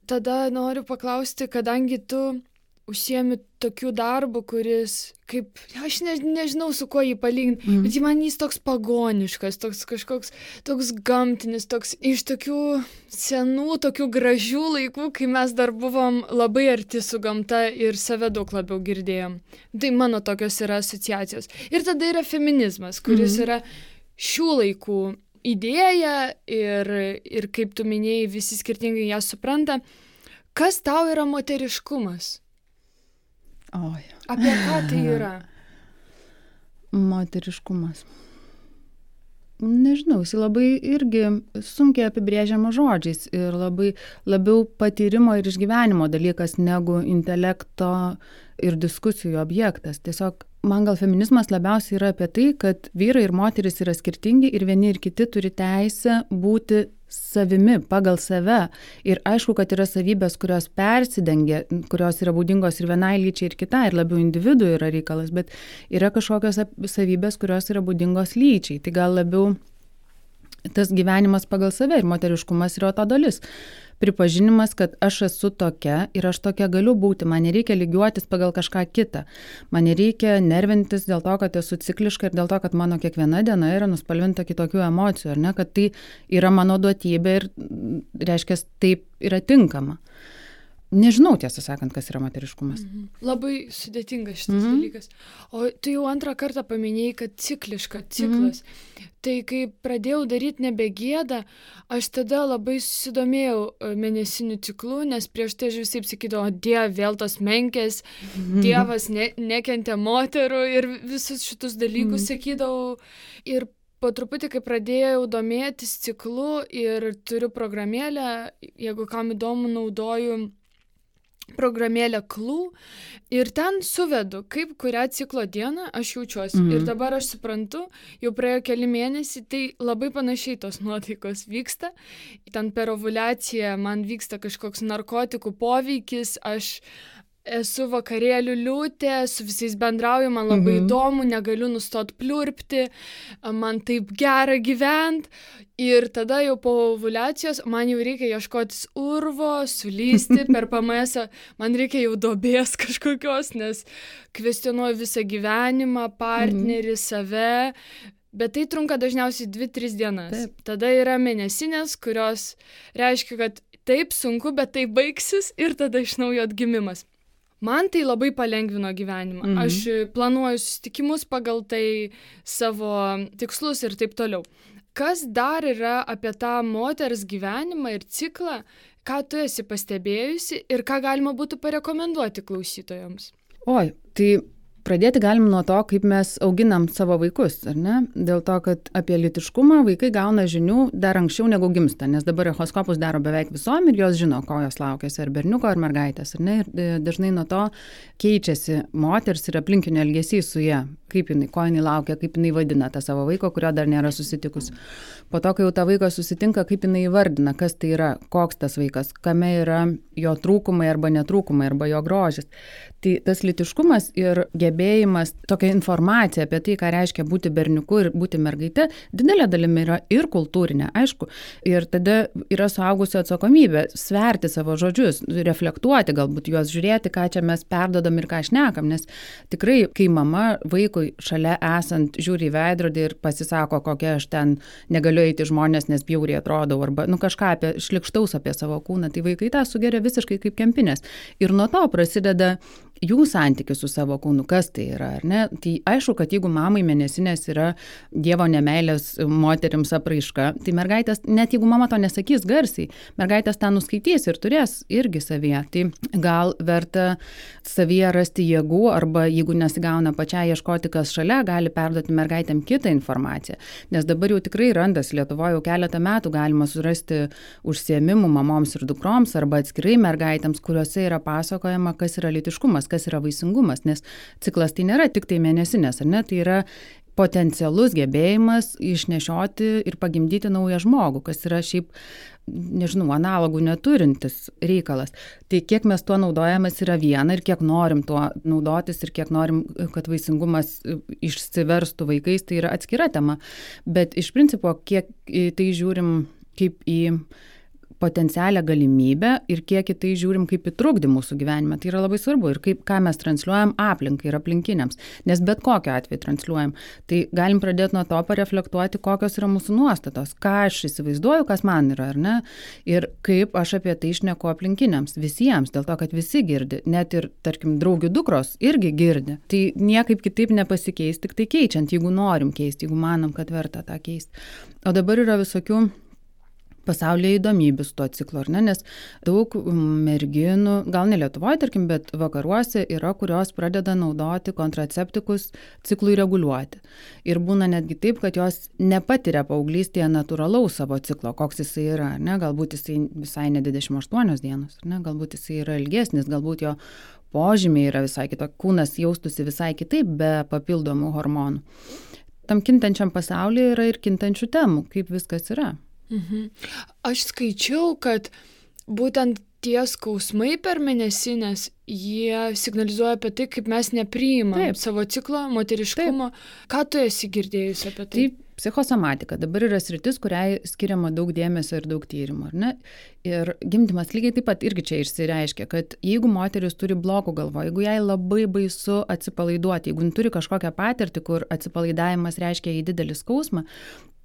Speaker 2: Tada noriu paklausti, kadangi tu užsiemi tokių darbų, kuris, kaip, aš nežinau su kuo jį palyginti, bet jis toks pagoniškas, toks kažkoks, toks gamtinis, toks iš tokių senų, tokių gražių laikų, kai mes dar buvom labai arti su gamta ir save daug labiau girdėjom. Tai mano tokios yra asociacijos. Ir tada yra feminizmas, kuris yra šių laikų idėja ir kaip tu minėjai, visi skirtingai ją supranta. Kas tau yra moteriškumas?
Speaker 1: Oi.
Speaker 2: Apie ką tai yra?
Speaker 1: Moteriškumas. Nežinau, jis labai irgi sunkiai apibrėžiama žodžiais ir labiau patyrimo ir išgyvenimo dalykas negu intelekto ir diskusijų objektas. Tiesiog man gal feminizmas labiausiai yra apie tai, kad vyrai ir moteris yra skirtingi ir vieni ir kiti turi teisę būti savimi, pagal save. Ir aišku, kad yra savybės, kurios persidengia, kurios yra būdingos ir vienai lyčiai ir kitai, ir labiau individų yra reikalas, bet yra kažkokios savybės, kurios yra būdingos lyčiai. Tai gal labiau tas gyvenimas pagal save ir moteriškumas yra to dalis. Pripažinimas, kad aš esu tokia ir aš tokia galiu būti, man nereikia lygiuotis pagal kažką kitą. Man nereikia nervintis dėl to, kad esu cikliška ir dėl to, kad mano kiekviena diena yra nuspalvinta kitokių emocijų, ar ne, kad tai yra mano duotybė ir reiškia, taip yra tinkama. nežinau, tiesą sakant, kas yra moteriškumas.
Speaker 2: Labai sudėtingas šitas dalykas. O tu jau antrą kartą paminėjai, kad ciklas. Tai kai pradėjau daryti nebegėdą, aš tada labai susidomėjau mėnesinių ciklų, nes prieš tai aš visai sakydavau, Dieve, vėl tos menkės, Dievas nekentė moterų ir visus šitus dalykus sakydavau. Ir po truputį, kai pradėjau domėtis ciklu ir turiu programėlę, jeigu kam įdomu, naudoju programėlę Clue ir ten suvedu, kaip kurią ciklo dieną aš jaučiuosi. Ir dabar aš suprantu, jau praėjo keli mėnesiai, tai labai panašiai tos nuotaikos vyksta. Ten per ovuliaciją man vyksta kažkoks narkotikų poveikis, aš esu vakarėlių liūtė, su visais bendrauju, man labai įdomu, negaliu nustoti pliurpti, man taip gera gyventi. Ir tada jau po ovuliacijos man jau reikia ieškotis urvo, sulysti per PMS, man reikia jau duobės kažkokios, nes kvestionuoju visą gyvenimą, partnerį, save. Bet tai trunka dažniausiai 2-3 dienas. Taip. Tada yra mėnesinės, kurios reiškia, kad taip sunku, bet tai baigsis ir tada iš naujo atgimimas. Man tai labai palengvino gyvenimą. Aš planuoju susitikimus pagal tai, savo tikslus ir taip toliau. Kas dar yra apie tą moters gyvenimą ir ciklą, ką tu esi pastebėjusi ir ką galima būtų parekomenduoti klausytojams?
Speaker 1: Oi, tai pradėti galim nuo to, kaip mes auginam savo vaikus, ar ne? Dėl to, kad apie lytiškumą vaikai gauna žinių dar anksčiau negu gimsta, nes dabar echoskopus daro beveik visom ir jos žino, ko jos laukiasi, ar berniuko, ar mergaitės, ar ne? Ir dažnai nuo to keičiasi moters ir aplinkinio elgesys su ja, kaip jinai, ko jinai laukia, kaip jinai vadina tą savo vaiko, kurio dar nėra susitikus. Po to, kai jau tą vaiką susitinka, kaip jinai įvardina, kas tai yra, koks tas vaikas, kame yra jo trūkumai arba netrūkumai, arba jo grožis. Tai tas lytiškumas ir gebėjimas, tokia informacija apie tai, ką reiškia būti berniuku ir būti mergaite, didelė dalimi yra ir kultūrinė, aišku. Ir tada yra suaugusio atsakomybė sverti savo žodžius, reflektuoti, galbūt juos žiūrėti, ką čia mes perdodam ir ką šnekam, nes tikrai, kai mama vaikui šalia esant žiūri į veidrodį ir pasisako, kokia aš ten negaliu eiti žmonės, nes bjauriai atrodau, arba kažką šlikštaus apie savo kūną, tai vaikai tą sugeria visiškai kaip kempinės. Ir nuo to prasideda jų santykis su savo kūnu, kas tai yra, ar ne? Tai aišku, kad jeigu mamai mėnesinės yra Dievo nemeilės moterims apraiška, tai mergaitės, net jeigu mama to nesakys garsiai, mergaitės tą nuskaitys ir turės irgi savyje. Tai gal verta savyje rasti jėgų, arba jeigu nesigauna pačiai ieškoti, kas šalia, gali perduoti mergaitėm kitą informaciją. Nes dabar jau tikrai randasi Lietuvoje jau keletą metų galima surasti užsiėmimų mamoms ir dukroms, arba atskirai mergaitėms, kuriuose yra pasakojama, kas yra lytiškumas, kas yra vaisingumas, nes ciklas tai nėra tik tai mėnesinės, ar ne, tai yra potencialus gebėjimas išnešioti ir pagimdyti naują žmogų, kas yra šiaip, nežinau, analogų neturintis reikalas. Tai kiek mes tuo naudojamės yra viena ir kiek norim tuo naudotis ir kiek norim, kad vaisingumas išsiverstų vaikais, tai yra atskira tema. Bet iš principo, kiek tai žiūrim kaip į potencialią galimybę ir kiek į tai žiūrim kaip į trukdį mūsų gyvenime. Tai yra labai svarbu ir ką mes transliuojam aplinkai ir aplinkiniams. Nes bet kokiu atveju transliuojam. Tai galim pradėti nuo to pareflektuoti, kokios yra mūsų nuostatos, ką aš įsivaizduoju, kas man yra, ar ne? Ir kaip aš apie tai šneku aplinkiniams, visiems, dėl to, kad visi girdi. Net ir, tarkim, draugių dukros irgi girdi. Tai niekaip kitaip nepasikeis, tik tai keičiant, jeigu norim keisti, jeigu manom, kad verta tą keisti. O dabar yra visokių pasaulyje įdomybių su tuo ciklu, ar ne? Nes daug merginų, gal ne Lietuvoje, tarkim, bet vakaruose yra, kurios pradeda naudoti kontraceptikus ciklui reguliuoti. Ir būna netgi taip, kad jos nepatiria paauglystėje natūralaus savo ciklo, koks jisai yra, ar ne? Galbūt jisai visai ne 28 dienos, ar ne? Galbūt jisai yra ilgesnis, galbūt jo požymiai yra visai kitokie, kūnas jaustųsi visai kitaip be papildomų hormonų. Tam kintančiam pasaulyje yra ir kintančių temų, kaip viskas yra.
Speaker 2: Aš skaičiau, kad būtent tie skausmai per mėnesinės, jie signalizuoja apie tai, kaip mes nepriimam savo ciklo, moteriškumo. Ką tu esi girdėjusi apie tai?
Speaker 1: Taip, psichosomatika dabar yra sritis, kuriai skiriama daug dėmesio ir daug tyrimų, ar ne? Ir gimdymas lygiai taip pat irgi čia išsireiškia, kad jeigu moteris turi blokų galvoje, jeigu jai labai baisu atsipalaiduoti, jeigu turi kažkokią patirtį, kur atsipalaidavimas reiškia į didelį skausmą,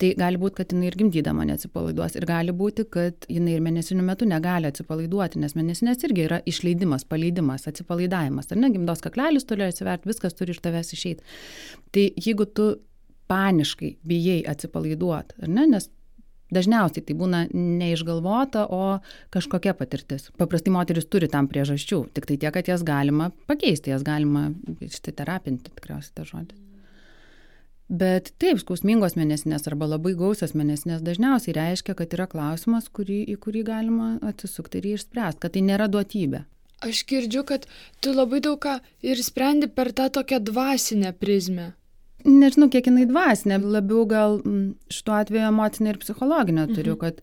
Speaker 1: tai gali būti, kad jinai ir gimdydama neatsipalaiduos. Ir gali būti, kad jinai ir mėnesinių metu negali atsipalaiduoti, nes mėnesinės irgi yra išleidimas, paleidimas, atsipalaidavimas. Ar ne, gimdos kaklelis turi atsiverti, viskas turi iš tavęs išeiti. Tai jeigu tu paniškai bijai atsipalaiduoti, ar ne, nes dažniausiai tai būna neišgalvota, o kažkokia patirtis. Paprastai moteris turi tam priežasčių, tik tai tiek, kad jas galima pakeisti, jas galima terapinti, tikriausiai tą žodį. Bet taip, skausmingos mėnesinės arba labai gausios mėnesinės dažniausiai reiškia, kad yra klausimas, į kurį galima atsisukti ir jį išspręsti, kad tai nėra duotybė.
Speaker 2: Aš girdžiu, kad tu labai daug ką ir sprendi per tą tokią dvasinę prizmę.
Speaker 1: Nežinau, kiek jinai dvasinė, labiau gal šituo atveju emocinė ir psichologinė turiu, kad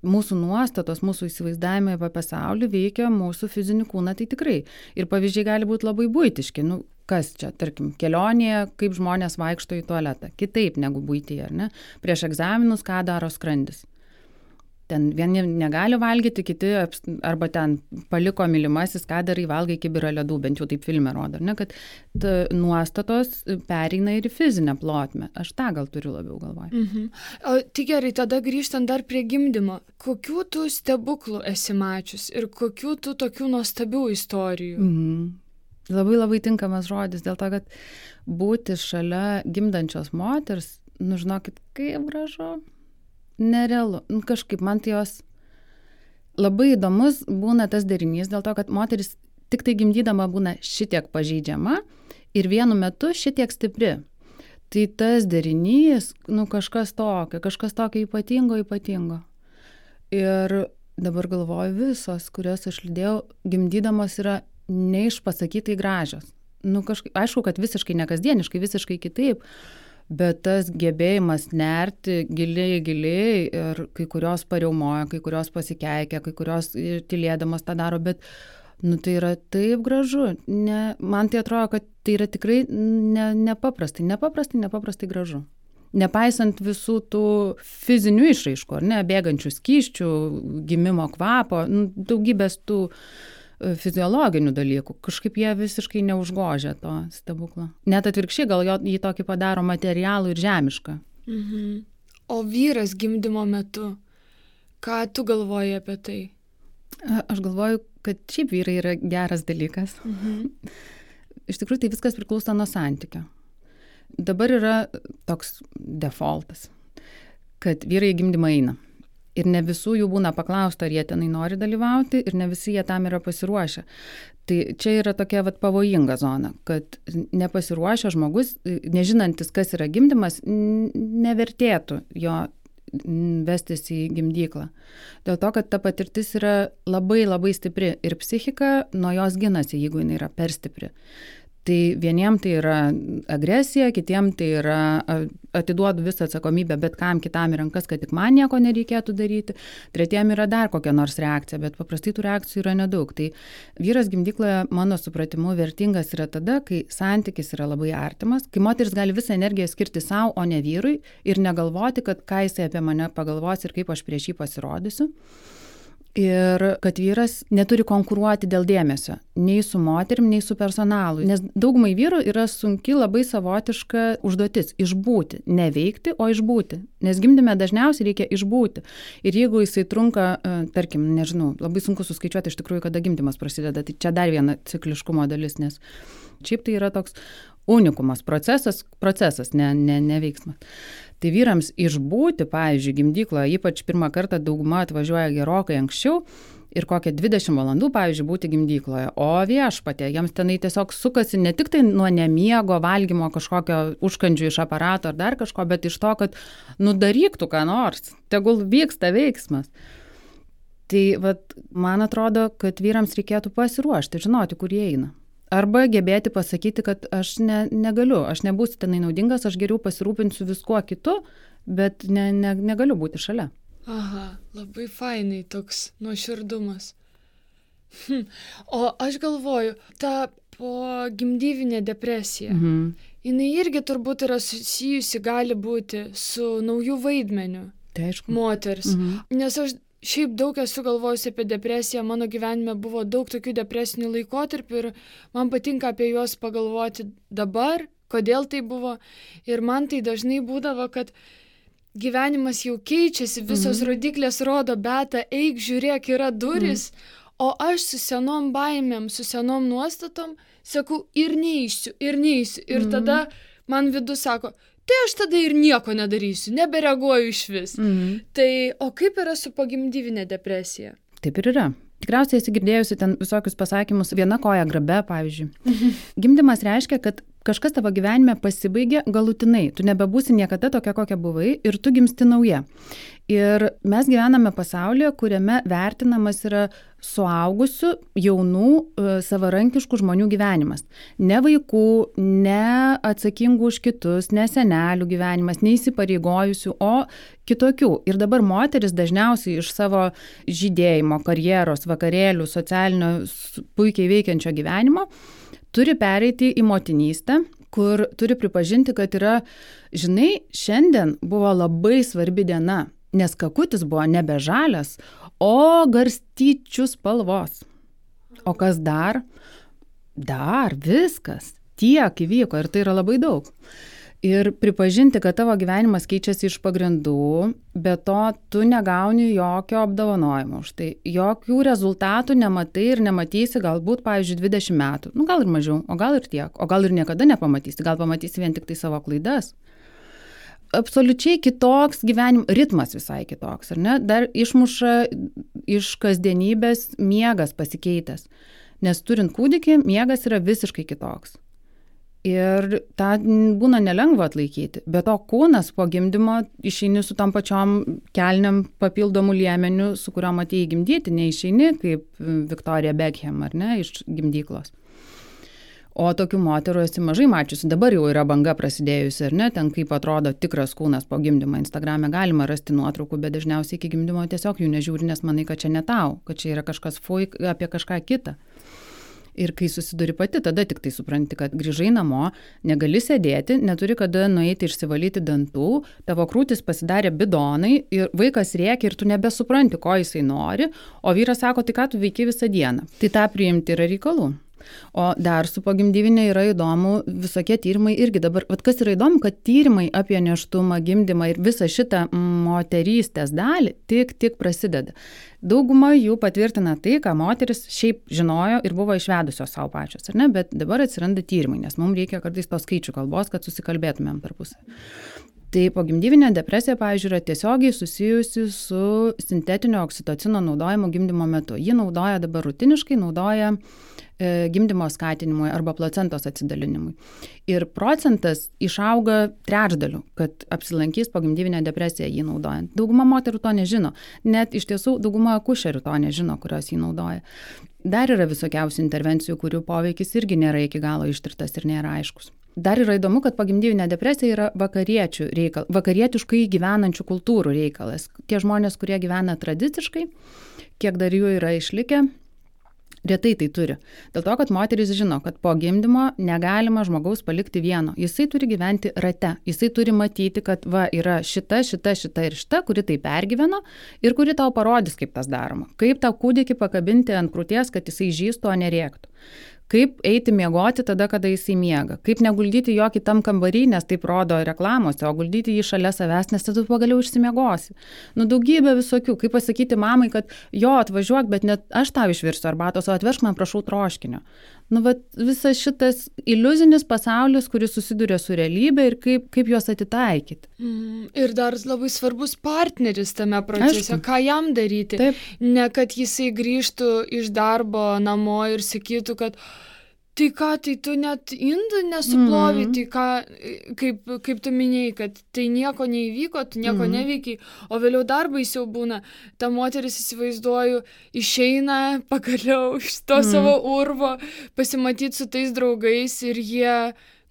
Speaker 1: mūsų nuostatos, mūsų įsivaizdavimai apie pasaulį veikia mūsų fizinį kūną, tai tikrai. Ir pavyzdžiai gali būti labai buitiški. Kas čia, tarkim, kelionėje, kaip žmonės vaikšto į tualetą. Kitaip negu buityje, ar ne? Prieš egzaminus, ką daro skrandis. Ten vieni negali valgyti, kiti arba ten paliko mylimasis, ką darai, valgai kibirą ledų, bent jau taip filme rodo, ne, kad nuostatos pereina ir į fizinę plotmę. Aš tą gal turiu labiau galvoje.
Speaker 2: O tai gerai, tada grįžtant dar prie gimdymo. Kokių tu stebuklų esi mačius ir kokių tu tokių nuostabių istorijų?
Speaker 1: Labai labai tinkamas žodis, dėl to, kad būti šalia gimdančios moters, žinokit, kaip gražu. Nerealu. Kažkaip man tai jos labai įdomus būna tas derinys, dėl to, kad moteris tik tai gimdydama būna šitiek pažeidžiama ir vienu metu šitiek stipri. Tai tas derinys, kažkas tokio ypatingo. Ir dabar galvoju, visos, kurias aš lydėjau, gimdydamos yra neišpasakytai gražios. Aišku, kad visiškai nekasdieniškai, visiškai kitaip. Bet tas gebėjimas nerti giliai ir kai kurios pariaumoja, kai kurios pasikeikia, kai kurios tylėdamas tą daro, bet tai yra taip gražu. Man tai atrodo, kad tai yra tikrai nepaprastai gražu. Nepaisant visų tų fizinių išraiškų, ar ne, bėgančių skysčių, gimimo kvapo, daugybės tų fiziologinių dalykų. Kažkaip jie visiškai neužgožia to stebuklo. Net atvirkščiai, gal jį tokį padaro materialų ir žemišką.
Speaker 2: O vyras gimdymo metu, ką tu galvoji apie tai?
Speaker 1: Aš galvoju, kad šiaip vyrai yra geras dalykas. Iš tikrųjų, tai viskas priklauso nuo santykio. Dabar yra toks defaultas, kad vyrai gimdymą eina. Ir ne visų jų būna paklausta, ar jie tenai nori dalyvauti, ir ne visi jie tam yra pasiruošę. Tai čia yra tokia pavojinga zona, kad nepasiruošę žmogus, nežinantis, kas yra gimdymas, nevertėtų jo vestis į gimdyklą. Dėl to, kad ta patirtis yra labai labai stipri ir psichika nuo jos ginasi, jeigu jinai yra per stipri. Tai vieniem tai yra agresija, kitiem tai yra atiduodu visą atsakomybę bet kam kitam į rankas, kad tik man nieko nereikėtų daryti. Tretiem yra dar kokia nors reakcija, bet paprastai tų reakcijų yra nedaug. Tai vyras gimdykloje, mano supratimu, vertingas yra tada, kai santykis yra labai artimas, kai moteris gali visą energiją skirti savo, o ne vyrui ir negalvoti, kad ką jisai apie mane pagalvos ir kaip aš prieš jį pasirodysiu. Ir kad vyras neturi konkuruoti dėl dėmesio, nei su moterim, nei su personalu. Nes daugumai vyrų yra sunki labai savotiška užduotis – išbūti. Neveikti, o išbūti. Nes gimdyme dažniausiai reikia išbūti. Ir jeigu jisai trunka, tarkim, nežinau, labai sunku suskaičiuoti iš tikrųjų, kada gimdymas prasideda. Tai čia dar viena cikliškumo dalis, nes šiaip tai yra toks unikumas, procesas, ne veiksmas. Tai vyrams išbūti, pavyzdžiui, gimdykloje, ypač pirmą kartą dauguma atvažiuoja gerokai anksčiau ir kokią 20 valandų, pavyzdžiui, būti gimdykloje. O viešpatie, jiems tenai tiesiog sukasi ne tik tai nuo nemiego, valgymo kažkokio užkandžių iš aparato ar dar kažko, bet iš to, kad daryk tu ką nors, tegul vyksta veiksmas. Tai man atrodo, kad vyrams reikėtų pasiruošti, žinoti, kur jie eina. Arba gebėti pasakyti, kad aš negaliu, aš nebūsiu tenai naudingas, aš geriau pasirūpinsiu viskuo kitu, bet negaliu būti šalia.
Speaker 2: Aha, labai fainai toks nuoširdumas. O aš galvoju, ta pogimdyvinė depresija. Jinai irgi turbūt yra susijusi, gali būti, su nauju vaidmeniu moters. Nes aš šiaip daug esu galvojusi apie depresiją, mano gyvenime buvo daug tokių depresinių laikotarpių ir man patinka apie juos pagalvoti dabar, kodėl tai buvo. Ir man tai dažnai būdavo, kad gyvenimas jau keičiasi, visos rodiklės rodo, Beata, eik, žiūrėk, yra duris, o aš su senom baimėm, su senom nuostatom, sakau, ir neįsiu. Ir tada man vidus sako, tai aš tada ir nieko nedarysiu, nebereaguoju iš vis. Tai, o kaip yra su pogimdyvinė depresija?
Speaker 1: Taip ir yra. Tikriausiai esi girdėjusi ten visokius pasakymus, viena koja grabe, pavyzdžiui. Gimdymas reiškia, kad kažkas tavo gyvenime pasibaigė galutinai. Tu nebebūsi niekada tokia, kokia buvai ir tu gimsti nauja. Ir mes gyvename pasaulyje, kuriame vertinamas yra suaugusių, jaunų, savarankiškų žmonių gyvenimas. Ne vaikų, ne atsakingų už kitus, ne senelių gyvenimas, ne įsipareigojusių, o kitokių. Ir dabar moteris dažniausiai iš savo žydėjimo, karjeros, vakarėlių, socialinio puikiai veikiančio gyvenimo turi pereiti į motinystę, kur turi pripažinti, kad yra, žinai, šiandien buvo labai svarbi diena, nes kakutis buvo nebe žalias, o garstyčių spalvos. O kas dar? Dar viskas. Tiek įvyko ir tai yra labai daug. Ir pripažinti, kad tavo gyvenimas keičiasi iš pagrindų, bet to tu negauni jokio apdovanojimo už tai. Jokių rezultatų nematai ir nematysi galbūt, pavyzdžiui, 20 metų. Nu, gal ir mažiau, o gal ir tiek. O gal ir niekada nepamatysi. Gal pamatysi vien tik tai savo klaidas. Absoliučiai kitoks gyvenimo ritmas visai kitoks, ar ne? Dar išmuša iš kasdienybės miegas pasikeitęs. Nes turint kūdikį, miegas yra visiškai kitoks. Ir tą būna nelengva atlaikyti. Bet to kūnas po gimdymo išeini su tam pačiom kelniam papildomų liemenių, su kuriuom atėjai gimdyti, neišeini kaip Victoria Beckham, ar ne, iš gimdyklos. O tokių moterų esi mažai mačiusi. Dabar jau yra banga prasidėjusi, ar ne, ten kaip atrodo tikras kūnas po gimdymo. Instagrame galima rasti nuotraukų, bet dažniausiai iki gimdymo tiesiog jų nežiūri, nes manai, kad čia ne tau, kad čia yra kažkas apie kažką kitą. Ir kai susiduri pati, tada tik tai supranti, kad grįžai namo, negali sėdėti, neturi kada nueiti išsivalyti dantų, tavo krūtis pasidarė bidonai ir vaikas rėkia ir tu nebesupranti, ko jisai nori, o vyras sako, tai ką tu veiki visą dieną. Tai tą priimti yra reikalų. O dar su pogimdyvinė yra įdomu visokie tyrimai irgi dabar. Vat kas yra įdomu, kad tyrimai apie nėštumą, gimdymą ir visą šitą moterystės dalį tik prasideda. Dauguma jų patvirtina tai, ką moteris šiaip žinojo ir buvo išvedusios savo pačios, ar ne? Bet dabar atsiranda tyrimai, nes mums reikia kartais tos skaičių kalbos, kad susikalbėtumėm per pusę. Tai pogimdyvinė depresija, pavyzdžiui, yra tiesiogiai susijusi su sintetinio oksitocino naudojimu gimdymo metu. Jį naudoja dabar rutiniškai, naudoja gimdymo skatinimui arba placentos atsidalinimui. Ir procentas išauga trečdaliu, kad apsilankys pogimdyvinę depresiją jį naudojant. Dauguma moterų to nežino. Net iš tiesų dauguma akušerių to nežino, kurios jį naudoja. Dar yra visokiausių intervencijų, kurių poveikis irgi nėra iki galo ištirtas ir nėra aiškus. Dar yra įdomu, kad pogimdyvinė depresija yra vakarietiškai gyvenančių kultūrų reikalas. Tie žmonės, kurie gyvena tradiciškai, kiek dar jų yra išlikę, retai tai turi. Dėl to, kad moteris žino, kad po gimdymo negalima žmogaus palikti vieno. Jisai turi gyventi rate. Jisai turi matyti, kad va yra šita ir šita, kuri tai pergyveno ir kuri tau parodys, kaip tas daroma. Kaip tą kūdikį pakabinti ant krūties, kad jisai žįstų, o nerėktų. Kaip eiti miegoti tada, kada jisai miega. Kaip neguldyti jo kitam kambarį, nes taip rodo reklamose, o guldyti jį šalia savęs, nes tada pagaliau išsimiegosi. Nu, daugybė visokių. Kaip pasakyti mamai, kad jo, atvažiuok, bet net aš tau išvirsiu arbatos, o atvežk man, prašau, troškinio. Nu, vat visas šitas iliuzinis pasaulis, kuris susiduria su realybė ir kaip juos atitaikyti.
Speaker 2: Ir dar labai svarbus partneris tame procese, ką jam daryti.
Speaker 1: Taip.
Speaker 2: Ne, kad jisai grįžtų iš darbo namo ir sakytų, kad tai ką, tai tu net indų nesuplovai, tai ką, kaip tu minėjai, kad tai nieko neįvyko, tu nieko neveikiai, o vėliau dar baisiau būna. Ta moteris, įsivaizduoju, išeina pagaliau iš to savo urvo, pasimatyti su tais draugais ir jie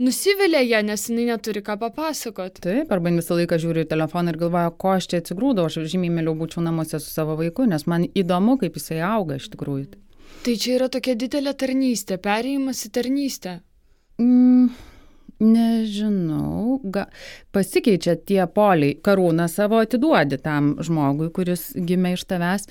Speaker 2: nusivilia ją, nes jinai neturi ką papasakot.
Speaker 1: Taip, arba visą laiką žiūriu į telefoną ir galvoju, ko aš čia atsigrūdau, aš žymiai mieliau būčiau namuose su savo vaiku, nes man įdomu, kaip jisai auga iš tikrųjų.
Speaker 2: Tai čia yra tokia didelė tarnystė, perėjimas į tarnystę.
Speaker 1: Nežinau, pasikeičia tie poliai. Karūną savo atiduodi tam žmogui, kuris gimė iš tavęs.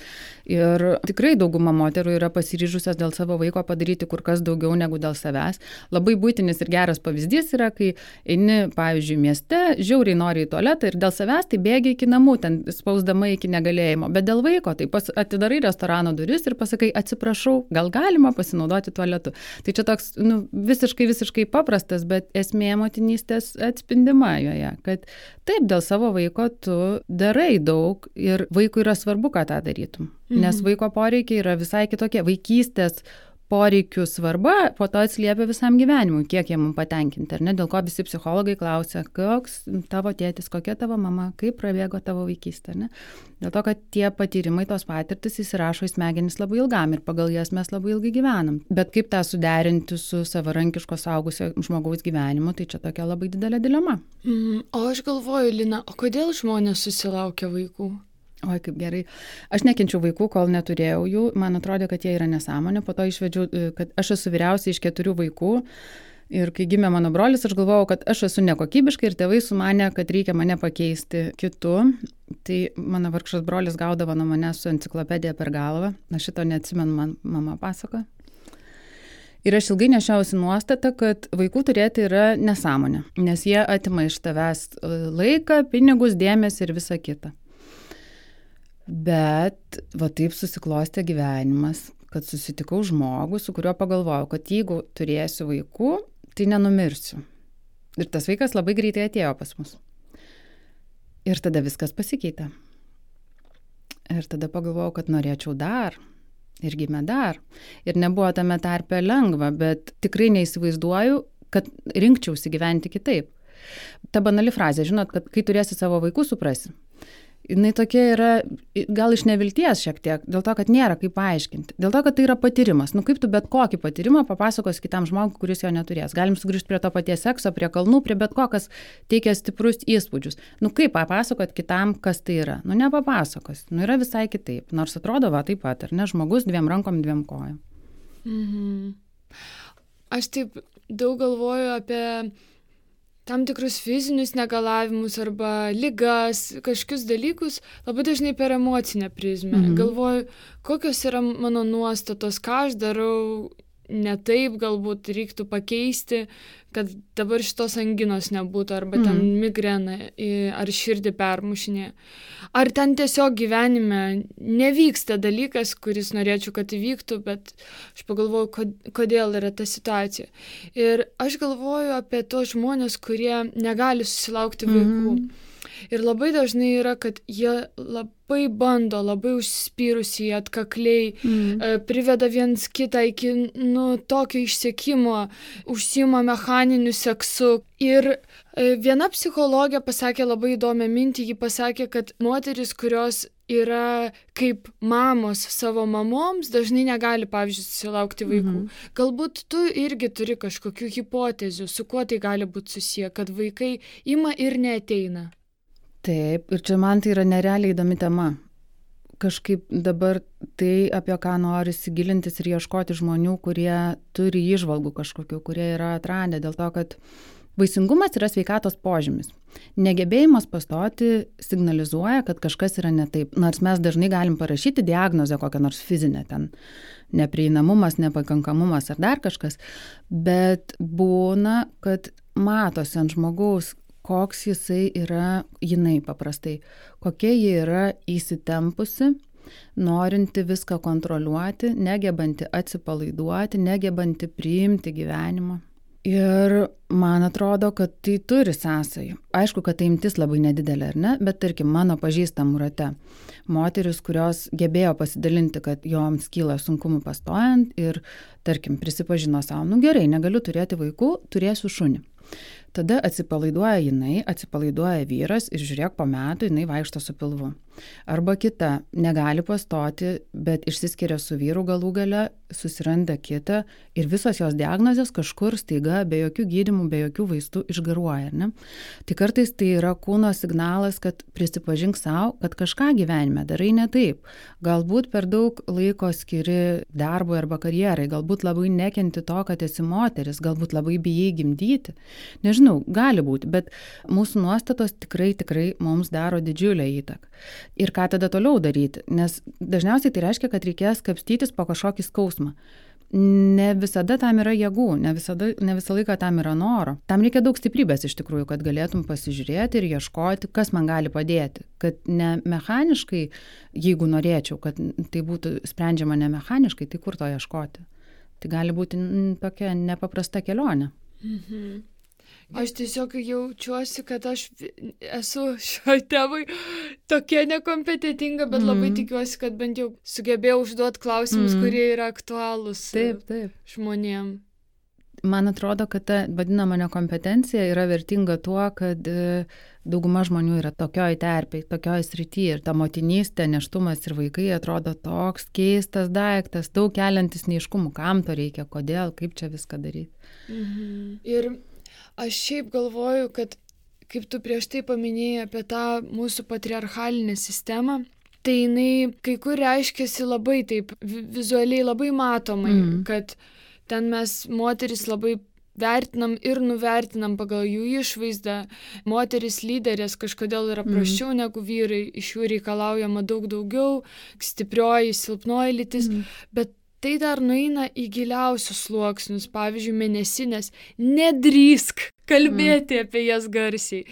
Speaker 1: Ir tikrai dauguma moterų yra pasiryžusios dėl savo vaiko padaryti kur kas daugiau negu dėl savęs. Labai būtinis ir geras pavyzdys yra, kai eini, pavyzdžiui, mieste, žiauriai nori į tualetą ir dėl savęs tai bėgi iki namų, ten spausdama iki negalėjimo. Bet dėl vaiko tai atidarai restorano duris ir pasakai, atsiprašau, gal galima pasinaudoti tualetu. Tai čia toks visiškai paprastas, bet esmė motinystės atspindima joje, kad taip, dėl savo vaiko tu darai daug ir vaikui yra svarbu, ką tą darytum. Nes vaiko poreikiai yra visai kitokie. Vaikystės poreikių svarba po to atsiliepia visam gyvenimui, kiek jie mums patenkinti. Ar ne? Dėl ko visi psichologai klausia, koks tavo tėtis, kokia tavo mama, kaip prabėgo tavo vaikystė. Ne? Dėl to, kad tie patyrimai, tos patirtis įsirašo į smegenis labai ilgam ir pagal jas mes labai ilgai gyvenam. Bet kaip tą suderinti su savarankiško suaugusio žmogaus gyvenimu, tai čia tokia labai didelė dilema.
Speaker 2: O aš galvoju, Lina, o kodėl žmonės susilaukia vaikų?
Speaker 1: Oi, kaip gerai. Aš nekenčiau vaikų, kol neturėjau jų. Man atrodė, kad jie yra nesąmonė. Po to išvedžiau, kad aš esu vyriausia iš 4 vaikų. Ir kai gimė mano brolis, aš galvojau, kad aš esu nekokybiška ir tėvai sumanė, kad reikia mane pakeisti kitu. Tai mano vargšas brolis gaudavo nuo manęs su enciklopedija per galvą. Aš šito neatsimenu, man mama pasako. Ir aš ilgai nešiausi nuostatą, kad vaikų turėti yra nesąmonė. Nes jie atima iš tavęs laiką, pinigus, dėmesį ir visą kitą. Bet va taip susiklostė gyvenimas, kad susitikau žmogų, su kuriuo pagalvojau, kad jeigu turėsiu vaikų, tai nenumirsiu. Ir tas vaikas labai greitai atėjo pas mus. Ir tada viskas pasikeitė. Ir tada pagalvojau, kad norėčiau dar. Ir gimė dar. Ir nebuvo tame tarpe lengva, bet tikrai neįsivaizduoju, kad rinkčiausi gyventi kitaip. Ta banali frazė, žinot, kad kai turėsi savo vaikų, suprasi. Jinai tokia yra, gal iš nevilties šiek tiek, dėl to, kad nėra kaip paaiškinti. Dėl to, kad tai yra patyrimas. Kaip tu bet kokį patyrimą papasakos kitam žmogui, kuris jo neturės. Galim sugrįžti prie to paties sekso, prie kalnų, prie bet ko, kas teikia stiprus įspūdžius. Kaip papasakot kitam, kas tai yra? Nepapasakos. Yra visai kitaip. Nors atrodo va taip pat, ar ne? Žmogus 2 rankom, 2 kojom.
Speaker 2: Aš taip daug galvoju apie tam tikrus fizinius negalavimus arba ligas, kažkokius dalykus labai dažnai per emocinę prizmę. Galvoju, kokios yra mano nuostatos, ką aš darau ne taip, galbūt reiktų pakeisti, kad dabar šitos anginos nebūtų, arba ten migrena ar širdį permušinė. Ar ten tiesiog gyvenime nevyksta dalykas, kuris norėčiau, kad įvyktų, bet aš pagalvoju, kodėl yra ta situacija. Ir aš galvoju apie tos žmonės, kurie negali susilaukti vaikų. Ir labai dažnai yra, kad jie labai bando, labai užsispyrusiai, atkakliai, priveda viens kitą iki tokio išsekimo, užsiima mechaniniu seksu. Ir viena psichologė pasakė labai įdomią mintį, ji pasakė, kad moteris, kurios yra kaip mamos savo mamoms, dažnai negali, pavyzdžiui, susilaukti vaikų. Galbūt tu irgi turi kažkokių hipotezių, su kuo tai gali būti susiję, kad vaikai ima ir neateina.
Speaker 1: Taip, ir čia man tai yra nerealiai įdomi tema. Kažkaip dabar tai, apie ką nori įsigilintis ir ieškoti žmonių, kurie turi įžvalgų kažkokių, kurie yra atradę, dėl to, kad vaisingumas yra sveikatos požymis. Negebėjimas pastoti signalizuoja, kad kažkas yra ne taip. Nors mes dažnai galim parašyti diagnozę kokią nors fizinę, ten neprieinamumas, nepakankamumas ar dar kažkas, bet būna, kad matosi ant žmogaus, koks jisai yra, jinai paprastai, kokia ji yra įsitempusi, norinti viską kontroliuoti, negebanti atsipalaiduoti, negebanti priimti gyvenimą. Ir man atrodo, kad tai turi sąsajų. Aišku, kad tai imtis labai nedidelė, ar ne? Bet tarkim, mano pažįstamų rate moteris, kurios gebėjo pasidalinti, kad joms kyla sunkumų pastojant ir, tarkim, prisipažino savo, gerai, negaliu turėti vaikų, turėsiu šunį. Tada atsipalaiduoja jinai, atsipalaiduoja vyras ir žiūrėk, po metų jinai vaikšto su pilvu. Arba kita, negali pastoti, bet išsiskiria su vyru galų gale, susiranda kitą ir visos jos diagnozės kažkur staiga, be jokių gydymų, be jokių vaistų išgaruoja. Ne? Tai kartais tai yra kūno signalas, kad prisipažink savo, kad kažką gyvenime darai ne taip. Galbūt per daug laiko skiri darbui arba karjerai, galbūt labai nekenti to, kad esi moteris, galbūt labai bijai gimdyti. Nežinau, gali būti, bet mūsų nuostatos tikrai mums daro didžiulę įtaką. Ir ką tada toliau daryti? Nes dažniausiai tai reiškia, kad reikės kapstytis po kažkokį skausmą. Ne visada tam yra jėgų, ne visą laiką tam yra noro. Tam reikia daug stiprybės iš tikrųjų, kad galėtum pasižiūrėti ir ieškoti, kas man gali padėti. Kad ne mechaniškai, jeigu norėčiau, kad tai būtų sprendžiama ne mechaniškai, tai kur to ieškoti? Tai gali būti tokia nepaprasta kelionė.
Speaker 2: Mhm. Aš tiesiog jaučiuosi, kad aš esu šioj temai tokia nekompetentinga, bet labai tikiuosi, kad bent jau sugebėjau užduoti klausimus, kurie yra aktualūs žmonėm.
Speaker 1: Man atrodo, kad ta vadinama nekompetencija yra vertinga tuo, kad dauguma žmonių yra tokioj terpėj, tokioj srityje ir ta motinystė, nėštumas ir vaikai atrodo toks keistas daiktas, daug keliantis neiškumų, kam to reikia, kodėl, kaip čia viską daryti.
Speaker 2: Ir aš šiaip galvoju, kad kaip tu prieš tai paminėjai apie tą mūsų patriarchalinę sistemą, tai jinai kai kur reiškiasi labai taip vizualiai, labai matomai, kad ten mes moteris labai vertinam ir nuvertinam pagal jų išvaizdą. Moteris lyderės kažkodėl yra prasčiau negu vyrai, iš jų reikalaujama daug daugiau, stiprioji, silpnoji lytis, bet tai dar nueina į giliausius sluoksnius, pavyzdžiui, mėnesinės, nedrįsk kalbėti apie jas garsiai.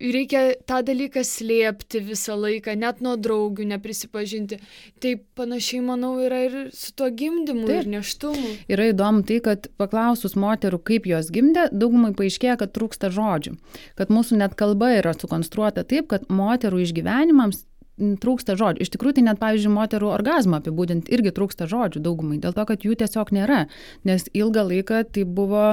Speaker 2: Reikia tą dalyką slėpti visą laiką, net nuo draugių neprisipažinti. Tai panašiai, manau, yra ir su tuo gimdymu ir nėštumu.
Speaker 1: Yra įdomu tai, kad paklausus moterų, kaip jos gimdė, daugumai paaiškėja, kad trūksta žodžių. Kad mūsų net kalba yra sukonstruota taip, kad moterų išgyvenimams trūksta žodžių. Iš tikrųjų, tai net, pavyzdžiui, moterų orgazmą apibūdinti irgi trūksta žodžių daugumai, dėl to, kad jų tiesiog nėra, nes ilgą laiką tai buvo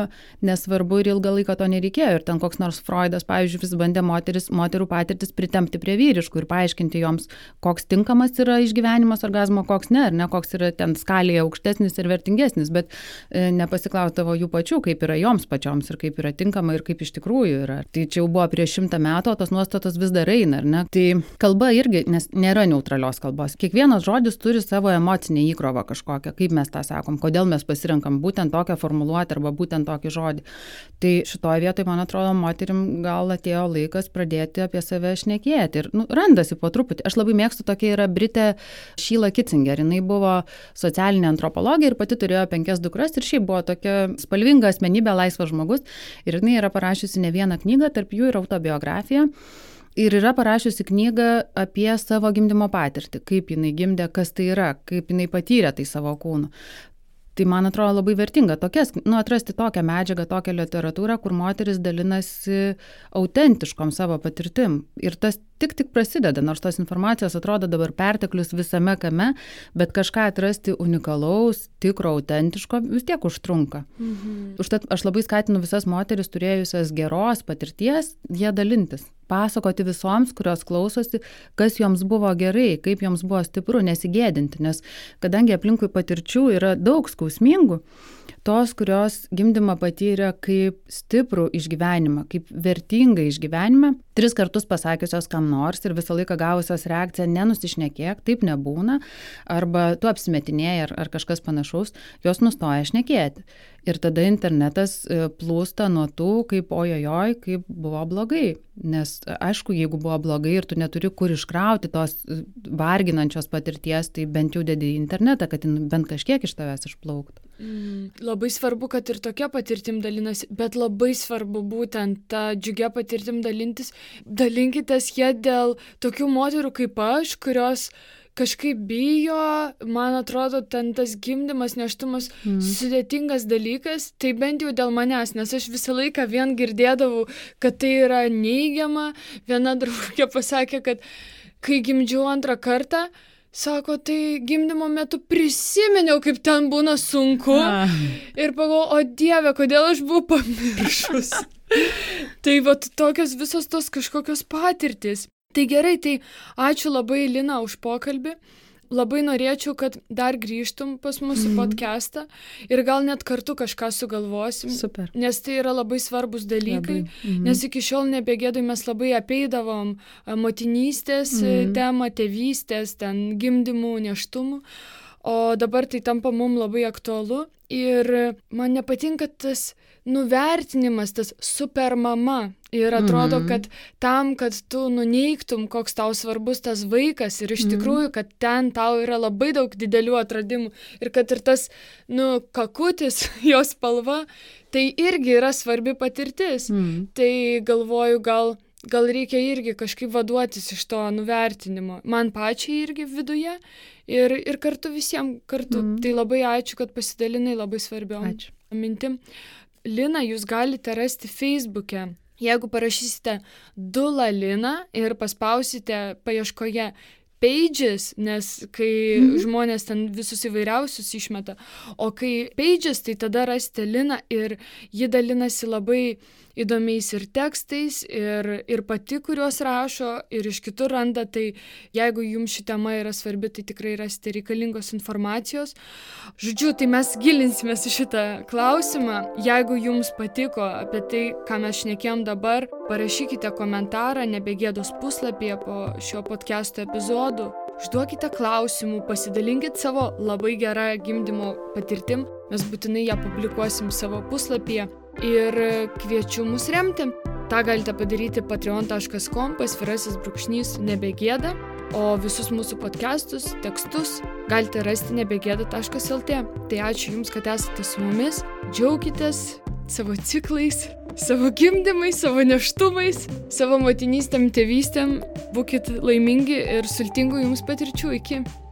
Speaker 1: nesvarbu ir ilgą laiką to nereikėjo. Ir ten koks nors Freudas, pavyzdžiui, vis bandė moterų patirtis pritempti prie vyriškų ir paaiškinti joms, koks tinkamas yra išgyvenimas orgazmo, koks ne, ar ne, koks yra ten skalėje aukštesnis ir vertingesnis, bet nepasiklausdavo jų pačių, kaip yra joms pačioms ir kaip yra tinkama ir kaip iš tikrųjų yra. Tai čia jau buvo prieš 100 metų, o tos nuostatos vis dar eina, ar ne? Tai kalba irgi, nes nėra neutralios kalbos. Kiekvienas žodis turi savo emocinę įkrovą kažkokią, kaip mes tą sakom, kodėl mes pasirenkam būtent tokią formuluotę arba būtent tokį žodį. Tai šitoje vietoje, man atrodo, moterim gal atėjo laikas pradėti apie save šnekėti ir randasi po truputį. Aš labai mėgstu, tokia yra Britė Sheila Kitzinger. Jinai buvo socialinė antropologė ir pati turėjo 5 dukras ir šiaip buvo tokia spalvinga asmenybė, laisvas žmogus. Ir jinai yra parašiusi ne vieną knygą, tarp jų ir autobiografiją. Ir yra parašiusi knygą apie savo gimdymo patirtį, kaip jinai gimdė, kas tai yra, kaip jinai patyrė tai savo kūnu. Tai man atrodo labai vertinga atrasti tokią medžiagą, tokią literatūrą, kur moteris dalinasi autentiškom savo patirtim. Ir tas tik prasideda, nors tos informacijos atrodo dabar perteklius visame kame, bet kažką atrasti unikalaus, tikro, autentiško vis tiek užtrunka. Užtat aš labai skatinu visas moteris turėjusias geros patirties, jie dalintis. Pasakoti visoms, kurios klausosi, kas joms buvo gerai, kaip joms buvo stipru, nesigėdinti, nes kadangi aplinkui patirčių yra daug skausmingų, tos, kurios gimdymą patyrė kaip stiprų išgyvenimą, kaip vertingą išgyvenimą, 3 kartus pasakiusios kam nors ir visą laiką gavusios reakciją nenusišnekėk, taip nebūna, arba tu apsimetinėjai ar kažkas panašaus, jos nustoja šnekėti. Ir tada internetas plūsta nuo tų, kaip ojojoj, kaip buvo blogai. Nes aišku, jeigu buvo blogai ir tu neturi kur iškrauti tos varginančios patirties, tai bent jau dedi į internetą, kad bent kažkiek iš tavęs išplauktų.
Speaker 2: Labai svarbu, kad ir tokia patirtim dalinasi, bet labai svarbu būtent tą džiugia patirtim dalintis. Dalinkitės jie dėl tokių moterų kaip aš, kurios kažkaip bijo, man atrodo, ten tas gimdymas, nėštumas sudėtingas dalykas, tai bent jau dėl manęs, nes aš visą laiką vien girdėdavau, kad tai yra neigiama. Viena draugė pasakė, kad kai gimdžiau 2 kartą, Sako, tai gimdymo metu prisiminiau, kaip ten būna sunku. Ir pagalvojau, o Dieve, kodėl aš buvau pamiršus. Tai vat tokios visos tos kažkokios patirtys. Tai gerai, tai ačiū labai Lina už pokalbį. Labai norėčiau, kad dar grįžtum pas mūsų podcastą ir gal net kartu kažką sugalvosim.
Speaker 1: Super.
Speaker 2: Nes tai yra labai svarbus dalykai, nes iki šiol nebegėdai mes labai apeidavom motinystės temą, tėvystės, ten gimdymų, nėštumų, o dabar tai tampa mums labai aktualu ir man nepatinka tas nuvertinimas, tas super mama. Ir atrodo, kad tam, kad tu nuneigtum, koks tau svarbus tas vaikas ir iš tikrųjų, kad ten tau yra labai daug didelių atradimų ir kad ir tas, kakutis, jos spalva, tai irgi yra svarbi patirtis. Tai galvoju, gal reikia irgi kažkaip vaduotis iš to nuvertinimo. Man pačiai irgi viduje ir kartu visiems kartu. Tai labai ačiū, kad pasidalinai labai svarbiom mintim. Lina, jūs galite rasti Facebook'e. Jeigu parašysite Dula Lina ir paspausite paieškoje pages, nes kai žmonės ten visus įvairiausius išmeta, o kai pages, tai tada rasite Liną ir ji dalinasi labai įdomiais ir tekstais, ir pati, kuriuos rašo, ir iš kitur randa, tai jeigu jums ši tema yra svarbi, tai tikrai rasite reikalingos informacijos. Žodžiu, tai mes gilinsimės į šitą klausimą. Jeigu jums patiko apie tai, ką mes šnekėjom dabar, parašykite komentarą Nebegėdos puslapyje po šio podcast'o epizodų. Užduokite klausimų, pasidalinkit savo labai gerą gimdymo patirtim. Mes būtinai ją publikuosim savo puslapyje ir kviečiu mus remti. Ta galite padaryti patreon.com/nebegėda, o visus mūsų podcastus, tekstus galite rasti nebegėda.lt. Tai ačiū Jums, kad esate su mumis. Džiaukitės savo ciklais, savo gimdymais, savo nėštumais, savo motinystėm, tėvystėm. Būkit laimingi ir sultingų Jums patirčių. Iki.